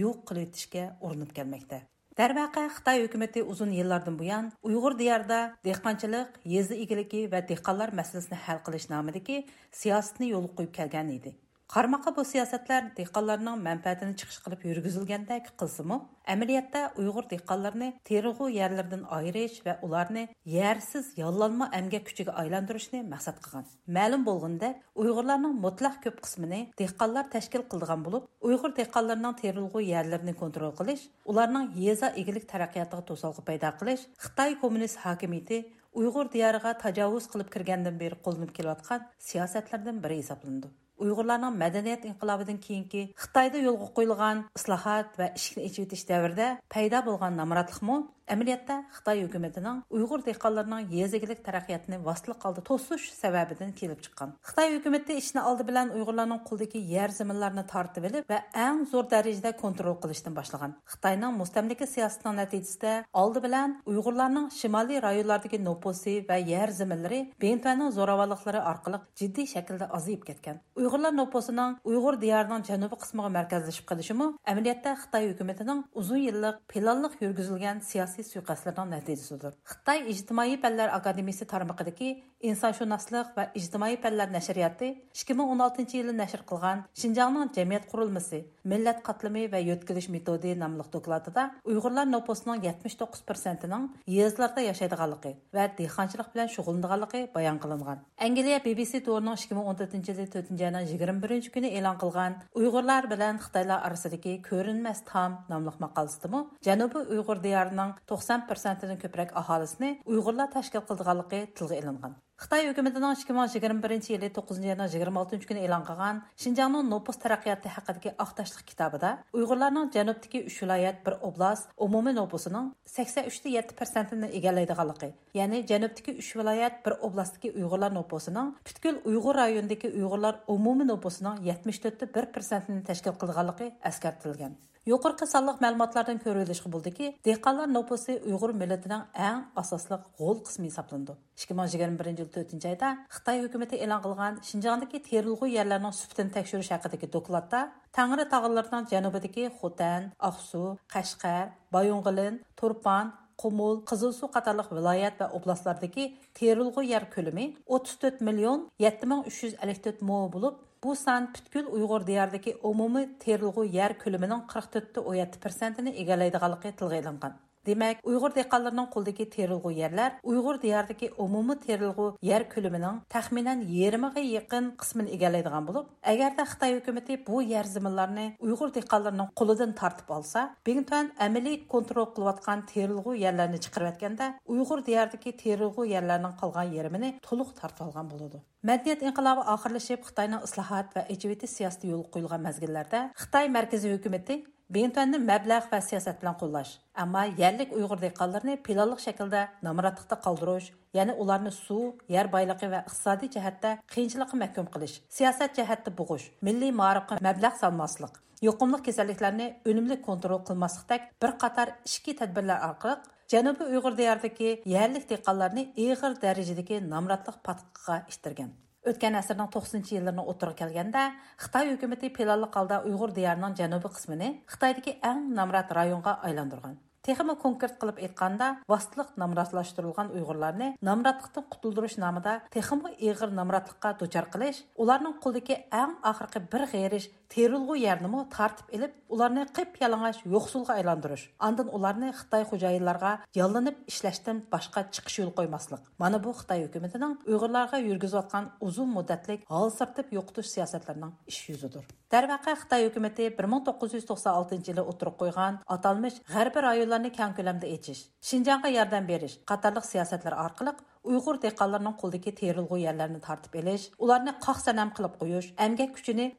يوق قىلىۋېتىشكە ئۇرۇنۇپ كەلمەكتە. دەرۋەقە، خىتاي ھۆكۈمىتى ئۇزۇن يىللاردىن بۇيان ئۇيغۇر دىيارىدا دېھقانچىلىق، يېزا ئىگىلىكى ۋە دېھقانلار مەسىلىسىنى ھەل قىلىش نامىدىكى سىياسىتىنى يولغا قويۇپ كەلگەن ئىدى. قارىماققا، بۇ سىياسەتلەر دېھقانلارنىڭ مەنپەئەتىنى چىقىش قىلىپ يۈرگۈزۈلگەندەك قىلسىمۇ، ئەمەلىيەتتە ئۇيغۇر دېھقانلىرىنى تېرىلغۇ يەرلىرىدىن ئايرىش ۋە ئۇلارنى يەرسىز ياللانما ئەمگەك كۈچىگە ئايلاندۇرۇشنى مەقسەت قىلغان. مەلۇم بولغىنىدەك، ئۇيغۇرلارنىڭ مۇتلەق كۆپ قىسمىنى دېھقانلار تەشكىل قىلىدىغان بولۇپ، ئۇيغۇر دېھقانلىرىنىڭ تېرىلغۇ يەرلىرىنى كونترول قىلىش، ئۇلارنىڭ يېزا ئىگىلىك تەرەققىياتىغا توسالغۇ پەيدا قىلىش خىتاي كوممۇنىست ھاكىمىيىتى ئۇيغۇر دىيارىغا تاجاۋۇز قىلىپ كىرگەندىن بېرى قوللىنىپ كېلىۋاتقان سىياسەتلەردىن بىرى ھېسابلىنىدۇ. ئۇيغۇرلارنىڭ مەدەنىيەت ئىنقىلابىدىن كېيىنكى خىتايدا يولغا قويۇلغان ئىسلاھات ۋە ئىشىكنى ئېچىۋېتىش دەۋرىدە پەيدا بولغان نامراتلىقمۇ ئەمەلىيەتتە خىتاي ھۆكۈمىتىنىڭ ئۇيغۇر دېھقانلىرىنىڭ يېزا ئىگىلىك تەرەققىياتىنى ۋاسىتىلىك ھالدا توسۇش سەۋەبىدىن كېلىپ چىققان. خىتاي ھۆكۈمىتى ئىشنى ئالدى بىلەن ئۇيغۇرلارنىڭ قولىدىكى يەر زېمىنلارنى تارتىۋېلىپ ۋە ئەڭ زور دەرىجىدە كونترول قىلىشتىن باشلىغان. خىتاينىڭ مۇستەملىكە سىياسىتىنىڭ نەتىجىسىدە ئالدى بىلەن ئۇيغۇرلارنىڭ شىمالىي رايونلاردىكى نوپۇسى ۋە يەر زېمىنلىرى بىڭتۈەننىڭ زوراۋانلىقلىرى ئارقىلىق جىددىي شەكىلدە ئازىيىپ كەتكەن. ئۇيغۇرلار نوپۇسىنىڭ ئۇيغۇر دىيارىنىڭ جەنۇبىي قىسمىغا مەركەزلىشىپ قېلىشىمۇ ئەمەلىيەتتە خىتاي ھۆكۈمىتىنىڭ ئۇزۇن يىللىق پىلانلىق يۈرگۈزۈلگەن سىياسىي سۇيىقەستلىرىنىڭ نەتىجىسىدۇر. خىتاي ئىجتىمائىي پەنلەر ئاكادېمىيىسى تارمىقىدىكى ئىنسانشۇناسلىق ۋە ئىجتىمائىي پەنلەر نەشرىياتى ئىككى مىڭ ئون ئالتىنچى يىلى نەشر قىلغان شىنجاڭنىڭ جەمئىيەت قۇرۇلمىسى، مىللەت قاتلىمى ۋە يۆتكىلىش مېتودى ناملىق دوكلاتىدا ئۇيغۇرلار نوپۇسىنىڭ يەتمىش توققۇز پىرسەنتىنىڭ يېزىلاردا ياشايدىغانلىقى ۋە دېھقانچىلىق بىلەن شۇغۇللىنىدىغانلىقى بايان قىلىنغان. ئەنگلىيە بى بى سى تورىنىڭ ئىككى مىڭ ئون تۆتىنچى يىلى تۆتىنچى ئاينىڭ يىگىرمە بىرىنچى كۈنى ئېلان قىلغان ئۇيغۇرلار بىلەن خىتايلار ئارىسىدىكى كۆرۈنمەس تام ناملىق ماقالىسىدىمۇ جەنۇبىي ئۇيغۇر دىيارىنىڭ توقسان پىرسەنتىدىن كۆپرەك ئاھالىسىنى ئۇيغۇرلار تەشكىل قىلىدىغانلىقى تىلغا ئېلىنغان. خىتاي ھۆكۈمىتىنىڭ ئىككى مىڭ يىگىرمە بىرىنچى يىلى توققۇزىنچى ئاينىڭ يىگىرمە ئالتىنچى كۈنى ئېلان قىلغان شىنجاڭنىڭ نوپۇس تەرەققىياتى ھەققىدىكى ئاق تاشلىق كىتابىدا ئۇيغۇرلارنىڭ جەنۇبتىكى ئۈچ ۋىلايەت، بىر ئوبلاست ئومۇمىي نوپۇسىنىڭ سەكسەن ئۈچتە يەتتە پىرسەنتىنى ئىگىلەيدىغانلىقى، يەنى جەنۇبتىكى ئۈچ ۋىلايەت، بىر ئوبلاستتىكى ئۇيغۇرلار نوپۇسىنىڭ پۈتكۈل ئۇيغۇر رايونىدىكى ئۇيغۇرلار ئومۇمىي نوپۇسىنىڭ يەتمىش تۆتتە بىر پىرسەنتىنى تەشكىل قىلىدىغانلىقى ئەسكەرتىلگەن. يۇقىرىقى سانلىق مەلۇماتلاردىن كۆرۈۋېلىشقا بولىدۇكى، دېھقانلار نوپۇسى ئۇيغۇر مىللىتىنىڭ ئەڭ ئاساسلىق غول قىسمى ھېسابلىنىدۇ. ئىككى مىڭ يىگىرمە بىرىنچى يىل تۆتىنچى ئايدا خىتاي ھۆكۈمىتى ئېلان قىلغان شىنجاڭدىكى تېرىلغۇ يەرلەرنىڭ سۈپىتىنى تەكشۈرۈش ھەققىدىكى دوكلاتتا، تەڭرى تاغلىرىنىڭ جەنۇبىدىكى خوتەن، ئاقسۇ، قەشقەر، بايىنغولىن، تۇرپان، قۇمۇل، قىزىلسۇ قاتارلىق ۋىلايەت ۋە ئوبلاستلاردىكى تېرىلغۇ يەر كۆلىمى ئوتتۇز تۆت مىليون يەتتە مىڭ ئۈچ يۈز ئەللىك تۆت مو بولۇپ، بۇ سان پۈتكۈل ئۇيغۇر دىيارىدىكى ئومۇمىي تېرىلغۇ يەر كۆلىمىنىڭ قىرىق تۆتتە ئون يەتتە پىرسەنتىنى ئىگىلەيدىغانلىقى تىلغا ئېلىنغان. دېمەك، ئۇيغۇر دېھقانلىرىنىڭ قولىدىكى تېرىلغۇ يەرلەر ئۇيغۇر دىيارىدىكى ئومۇمىي تېرىلغۇ يەر كۆلىمىنىڭ تەخمىنەن يېرىمىغا يېقىن قىسمىنى ئىگىلەيدىغان بولۇپ، ئەگەردە خىتاي ھۆكۈمىتى بۇ يەر زېمىنلارنى ئۇيغۇر دېھقانلىرىنىڭ قولىدىن تارتىپ ئالسا، بىڭتۈەن ئەمەلىي كونترول قىلىۋاتقان تېرىلغۇ يەرلەرنى چىقىرىۋەتكەندە، ئۇيغۇر دىيارىدىكى تېرىلغۇ يەرلەرنىڭ قالغان يېرىمىنى تولۇق تارتىۋالغان بولىدۇ. مەدەنىيەت ئىنقىلابى ئاخىرلىشىپ، خىتاينىڭ ئىسلاھات ۋە ئېچىۋېتىش سىياسىتى يولغا قويۇلغان مەزگىللەردە خىتاي مەركىزىي ھۆكۈمىتى بىڭتۈەننى مەبلەغ ۋە سىياسەت بىلەن قوللاش، ئەمما يەرلىك ئۇيغۇر دېھقانلىرىنى پىلانلىق شەكىلدە نامراتلىقتا قالدۇرۇش، يەنى ئۇلارنى سۇ، يەر بايلىقى ۋە ئىقتىسادىي جەھەتتە قىيىنچىلىققا مەھكۇم قىلىش، سىياسەت جەھەتتە بوغۇش، مىللىي مائارىپقا مەبلەغ سالماسلىق، يۇقۇملۇق كېسەللىكلەرنى ئۈنۈملۈك كونترول قىلماسلىقتەك بىر قاتار ئىچكى تەدبىرلەر ئارقىلىق جەنۇبىي ئۇيغۇر دىيارىدىكى يەرلىك دېھقانلارنى ئېغىر دەرىجىدىكى نامراتلىق پاتقىقىغا ئىتتەرگەن. ئۆتكەن ئەسىرنىڭ توقسىنىنچى يىللىرىنىڭ ئوتتۇرىغا كەلگەندە، خىتاي ھۆكۈمىتى پىلانلىق ھالدا ئۇيغۇر دىيارىنىڭ جەنۇبىي قىسمىنى خىتايدىكى ئەڭ نامرات رايونغا ئايلاندۇرغان. تېخىمۇ كونكرېت قىلىپ ئېيتقاندا، ۋاسىتىلىق نامراتلاشتۇرۇلغان ئۇيغۇرلارنى نامراتلىقتىن قۇتۇلدۇرۇش نامىدا تېخىمۇ ئېغىر نامراتلىققا دۇچار قىلىش، ئۇلارنىڭ قولىدىكى ئەڭ ئاخىرقى بىر غېرىش تېرىلغۇ يەرنىمۇ تارتىپ ئېلىپ، ئۇلارنى قىپيالىڭاچ يوقسۇلغا ئايلاندۇرۇش، ئاندىن ئۇلارنى خىتاي خوجايىنلارغا ياللىنىپ ئىشلەشتىن باشقا چىقىش يولى قويماسلىق. مانا بۇ خىتاي ھۆكۈمىتىنىڭ ئۇيغۇرلارغا يۈرگۈزۈۋاتقان ئۇزۇن مۇددەتلىك ھالسىرىتىپ يوقىتىش سىياسەتلىرىنىڭ ئىش يۈزىدۇر. دەرۋەقە، خىتاي ھۆكۈمىتى بىر مىڭ توققۇز يۈز توقسان ئالتىنچى يىلى ئوتتۇرىغا قويغان ئاتالمىش غەربىي رايونلارنى كەڭ كۆلەمدە ئېچىش، شىنجاڭغا ياردەم بېرىش قاتارلىق سىياسەتلەر ئارقىلىق ئۇيغۇر دېھقانلىرىنىڭ قولىدىكى تېرىلغۇ يەرلەرنى تارتىپ ئېلىش، ئۇلارنى قاق سەنەم قىلىپ قويۇش، ئەمگەك كۈچىنى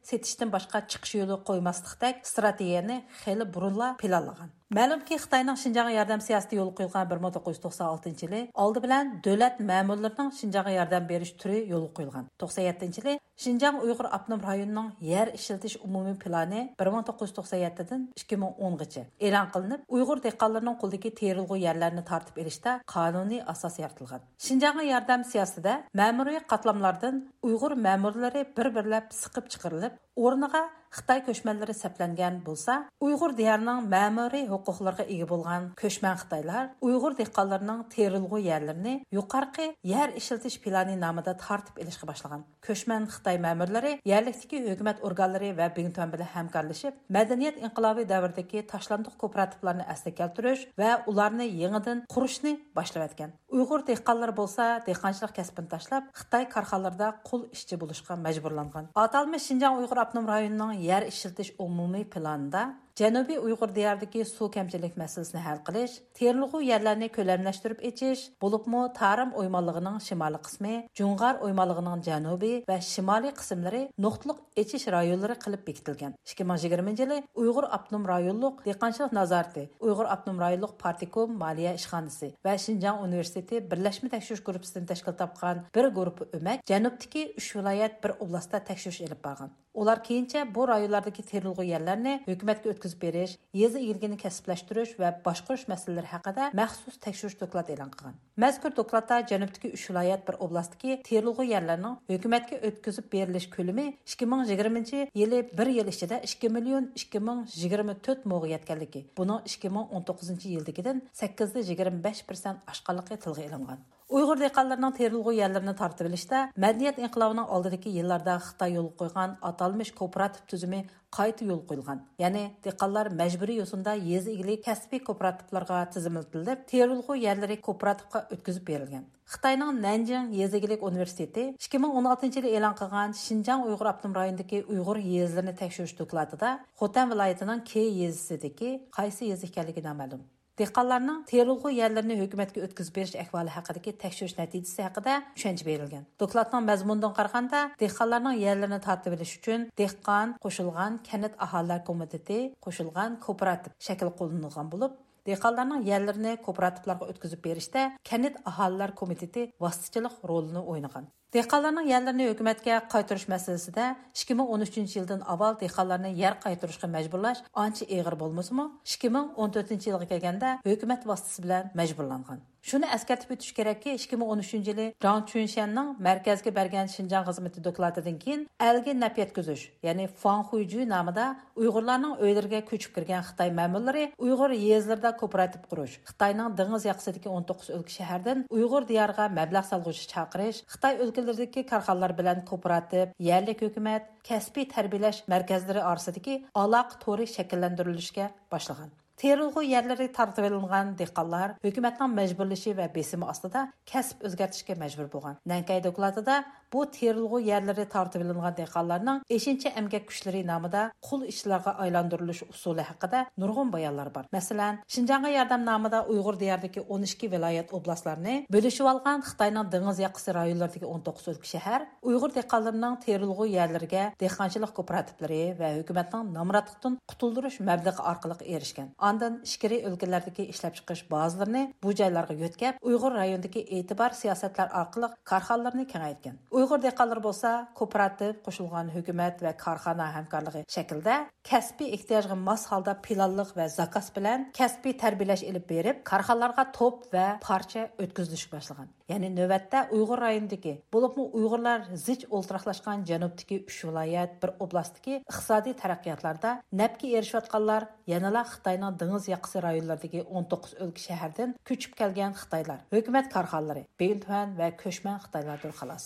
سېتىشتىن باشقا چىقىش يولى قويماسلىقتەك ئىستراتېگىيەنى خېلى بۇرۇنلا پىلانلىغان. مەلۇمكى، خىتاينىڭ شىنجاڭغا ياردەم سىياسىتى يولغا قويۇلغان بىر مىڭ توققۇز يۈز توقسان ئالتىنچى يىلى ئالدى بىلەن دۆلەت مەمۇرلىرىنىڭ شىنجاڭغا ياردەم بېرىش تۈرى يولغا قويۇلغان. توقسان يەتتىنچى يىلى شىنجاڭ ئۇيغۇر ئاپتونوم رايونىنىڭ يەر ئىشلىتىش ئومۇمىي پىلانى بىر مىڭ توققۇز يۈز توقسان يەتتىدىن ئىككى مىڭ ئونغىچە ئېلان قىلىنىپ، ئۇيغۇر دېھقانلىرىنىڭ قولىدىكى تېرىلغۇ يەرلەرنى تارتىپ ئېلىشتا قانۇنىي ئاساس يارىتىلغان. شىنجاڭغا ياردەم سىياسىتىدە مەمۇرىي قاتلاملاردىن ئۇيغۇر مەمۇرلىرى بىر-بىرلەپ سىقىپ چىقىرىلىپ، ئورنىغا خىتاي كۆچمەنلىرى سەپلەنگەن بولسا، ئۇيغۇر دىيارىنىڭ مەمۇرىي ھوقۇقلىرىغا ئىگە بولغان كۆچمەن خىتايلار ئۇيغۇر دېھقانلىرىنىڭ تېرىلغۇ يەرلىرىنى يۇقىرىقى يەر ئىشلىتىش پىلانى نامىدا تارتىپ ئېلىشقا باشلىغان. كۆچمەن خىتاي مەمۇرلىرى يەرلىكتىكى ھۆكۈمەت ئورگانلىرى ۋە بىڭتۈەن بىلەن ھەمكارلىشىپ، مەدەنىيەت ئىنقىلابى دەۋرىدىكى تاشلاندۇق كوپىراتىپلارنى ئەسلىگە كەلتۈرۈش ۋە ئۇلارنى يېڭىدىن قۇرۇشنى باشلىۋەتكەن. ئۇيغۇر دېھقانلىرى بولسا دېھقانچىلىق كەسپىنى تاشلاپ، خىتاي كارخانىلىرىدا قۇل ئىشچى بولۇشقا مەجبۇرلانغان. ئاتالمىش شىنجاڭ ئۇيغۇر ئاپتونوم رايونىنىڭ يەر ئىشلىتىش ئومۇمىي پىلانىدا جەنۇبىي ئۇيغۇر دىيارىدىكى سۇ كەمچىلىك مەسىلىسىنى ھەل قىلىش، تېرىلغۇ يەرلەرنى كۆلەملەشتۈرۈپ ئېچىش، بولۇپمۇ تارىم ئويمانلىقىنىڭ شىمالىي قىسمى، جۇڭغار ئويمانلىقىنىڭ جەنۇبىي ۋە شىمالىي قىسىملىرى نۇقتىلىق ئېچىش رايونلىرى قىلىپ بېكىتىلگەن. ئىككى مىڭ يىگىرمىنچى يىلى ئۇيغۇر ئاپتونوم رايونلۇق دېھقانچىلىق نازارىتى، ئۇيغۇر ئاپتونوم رايونلۇق پارتكوم مالىيە ئىشخانىسى ۋە شىنجاڭ ئۇنىۋېرسىتېتى بىرلەشمە تەكشۈرۈش گۇرۇپپىسىدىن تەشكىل تاپقان بىر گۇرۇپپا ئۆمەك جەنۇبتىكى ئۈچ ۋىلايەت، بىر ئوبلاستتا تەكشۈرۈش ئېلىپ بارغان. ئۇلار كېيىنچە بۇ رايونلاردىكى تېرىلغۇ يەرلەرنى ھۆكۈمەتكە ئۆتكۈزۈپ بېرىش، يېزا ئىگىلىكىنى كەسىپلەشتۈرۈش ۋە باشقۇرۇش مەسىلىلىرى ھەققىدە مەخسۇس تەكشۈرۈش دوكلاتى ئېلان قىلغان. مەزكۇر دوكلاتتا جەنۇبتىكى ئۈچ ۋىلايەت، بىر ئوبلاستتىكى تېرىلغۇ يەرلەرنىڭ ھۆكۈمەتكە ئۆتكۈزۈپ بېرىلىش كۆلىمى ئىككى مىڭ يىگىرمىنچى يىلى بىر يىل ئىچىدە ئىككى مىليون ئىككى مىڭ يىگىرمە تۆت موغا يەتكەنلىكى، بۇنىڭ ئىككى مىڭ ئون توققۇزىنچى يىلدىكىدىن سەككىز يۈز يىگىرمە بەش پىرسەنت ئاشقانلىقى تىلغا ئېلىنغان. ئۇيغۇر دېھقانلىرىنىڭ تېرىلغۇ يەرلىرىنى تارتىۋېلىشتا مەدەنىيەت ئىنقىلابىنىڭ ئالدىدىكى يىللاردا خىتاي يولغا قويغان ئاتالمىش كوپىراتىپ تۈزۈمى قايتا يولغا قويۇلغان. يەنى دېھقانلار مەجبۇرىي يوسۇندا يېزا ئىگىلىك كەسپىي كوپىراتىپلارغا تىزىملىتىلىپ، تېرىلغۇ يەرلىرى كوپىراتىپقا ئۆتكۈزۈپ بېرىلگەن. خىتاينىڭ نەنجىڭ يېزا ئىگىلىك ئۇنىۋېرسىتېتى ئىككى مىڭ ئون ئالتىنچى يىلى ئېلان قىلغان شىنجاڭ ئۇيغۇر ئاپتونوم رايونىدىكى ئۇيغۇر يېزىلىرىنى تەكشۈرۈش دوكلاتىدا خوتەن ۋىلايىتىنىڭ كې يېزىسىدىكى قايسى يېزا ئىكەنلىكى نامەلۇم. دېھقانلارنىڭ تېرىلغۇ يەرلىرىنى ھۆكۈمەتكە ئۆتكۈزۈپ بېرىش ئەھۋالى ھەققىدىكى تەكشۈرۈش نەتىجىسى ھەققىدە چۈشەنچە بېرىلگەن. دوكلاتنىڭ مەزمۇنىدىن قارىغاندا، دېھقانلارنىڭ يەرلىرىنى تارتىۋېلىش ئۈچۈن دېھقان قوشۇلغان كەنت ئاھالىلەر كومىتېتى قوشۇلغان كوپىراتىپ شەكلى قوللىنىلغان بولۇپ، دېھقانلارنىڭ يەرلىرىنى كوپىراتىپلارغا ئۆتكۈزۈپ بېرىشتە كەنت ئاھالىلەر كومىتېتى ۋاسىتىچىلىق رولىنى ئوينىغان. دېھقانلارنىڭ يەرلىرىنى ھۆكۈمەتكە قايتۇرۇش مەسىلىسىدە ئىككى مىڭ ئون ئۈچىنچى يىلدىن ئاۋۋال دېھقانلارنى يەر قايتۇرۇشقا مەجبۇرلاش ئانچە ئېغىر بولمىسىمۇ، ئىككى مىڭ ئون تۆتىنچى يىلغا كەلگەندە ھۆكۈمەت ۋاسىتىسى بىلەن مەجبۇرلانغان. شۇنى ئەسكەرتىپ ئۆتۈش كېرەككى، ئىككى مىڭ ئون ئۈچىنچى يىلى جاڭ چۈنشيەننىڭ مەركەزگە بەرگەن شىنجاڭ خىزمىتى دوكلاتىدىن كېيىن ئەلگە نەپ يەتكۈزۈش، يەنى فاڭخۇيجۈ نامىدا ئۇيغۇرلارنىڭ ئۆيلىرىگە كۆچۈپ كىرگەن خىتاي مەمۇرلىرى ئۇيغۇر يېزىلىرىدا كوپىراتىپ قۇرۇش، خىتاينىڭ دېڭىز ياقىسىدىكى ئون توققۇز ئۆلكە شەھەردىن ئۇيغۇر دىيارىغا مەبلەغ سالغۇچى چاقىرىش، خىتاي ئۆلكىلىرىدىكى كارخانىلار بىلەن كوپىراتىپ، يەرلىك ھۆكۈمەت، كەسپىي تەربىيەلەش مەركەزلىرى ئارىسىدىكى ئالاقە تورى شەكىللەندۈرۈلۈشكە باشلىغان. تېرىلغۇ يەرلىرى تارتىۋېلىنغان دېھقانلار ھۆكۈمەتنىڭ مەجبۇرلىشى ۋە بېسىمى ئاستىدا كەسىپ ئۆزگەرتىشكە مەجبۇر بولغان. نەنكەي دوكلاتىدا بۇ تېرىلغۇ يەرلىرى تارتىۋېلىنغان دېھقانلارنىڭ ئېشىنچا ئەمگەك كۈچلىرى نامىدا قۇل ئىشچىلارغا ئايلاندۇرۇلۇش ئۇسۇلى ھەققىدە نۇرغۇن بايانلار بار. مەسىلەن، شىنجاڭغا ياردەم نامىدا ئۇيغۇر دىيارىدىكى ئون ئىككى ۋىلايەت ئوبلاستلارنى بۆلۈشۈۋالغان خىتاينىڭ دېڭىز ياقىسى رايونلىرىدىكى ئون توققۇز ئۆلكە شەھەر ئۇيغۇر دېھقانلىرىنىڭ تېرىلغۇ يەرلىرىگە دېھقانچىلىق كوپىراتىپلىرى ۋە ھۆكۈمەتنىڭ نامراتلىقتىن قۇتۇلدۇرۇش مەبلىغى ئارقىلىق ئېرىشكەن. ئاندىن ئىچكىرى ئۆلكىلەردىكى ئىشلەپچىقىرىش بازىلىرىنى بۇ جايلارغا يۆتكەپ، ئۇيغۇر رايونىدىكى ئېتىبار سىياسەتلەر ئارقىلىق كارخانىلىرىنى كېڭەيتكەن. ئۇيغۇر دېھقانلىرى بولسا كوپىراتىپ، قوشۇلغان ھۆكۈمەت ۋە كارخانا ھەمكارلىقى شەكلىدە كەسپىي ئېھتىياجغا ماس ھالدا پىلانلىق ۋە زاكاز بىلەن كەسپىي تەربىيەلەش ئېلىپ بېرىپ، كارخانىلارغا توپ ۋە پارچە ئۆتكۈزۈلۈشكە باشلىغان. يەنى نۆۋەتتە ئۇيغۇر رايونىدىكى، بولۇپمۇ ئۇيغۇرلار زىچ ئولتۇراقلاشقان جەنۇبتىكى ئۈچ ۋىلايەت، بىر ئوبلاستتىكى ئىقتىسادىي تەرەققىياتلاردا نەپكە ئېرىشىۋاتقانلار يەنىلا خىتاينىڭ دېڭىز ياقىسى رايونلىرىدىكى ئون توققۇز ئۆلكە شەھەردىن كۆچۈپ كەلگەن خىتايلار، ھۆكۈمەت كارخانىلىرى، بىڭتۈەن ۋە كۆچمەن خىتايلاردۇر خالاس.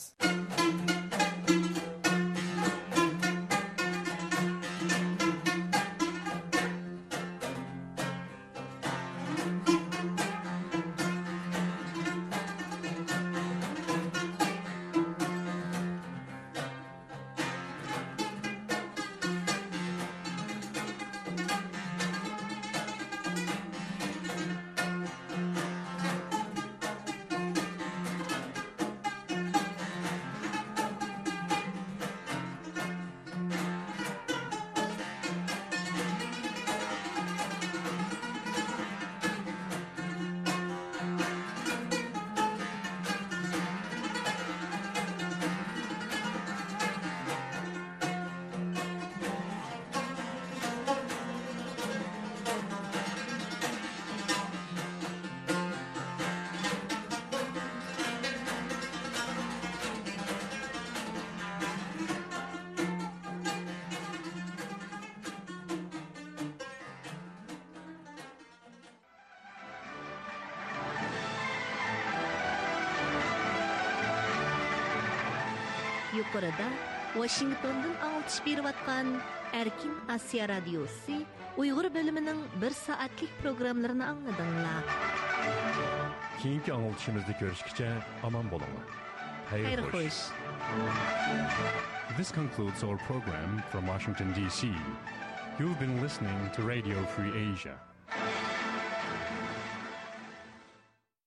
يۇقىرىدا ۋاشىنگتوندىن ئاڭلىتىش بېرىۋاتقان ئەركىن ئاسىيا رادىيوسى ئۇيغۇر بۆلۈمىنىڭ بىر سائەتلىك پروگراممىلىرىنى ئاڭلىدىڭلار. كېيىنكى ئاڭلىتىشىمىزدا كۆرۈشكىچە ئامان بولۇڭلار. خەير خوش. This concludes our program from Washington, D C. You've been listening to Radio Free Asia.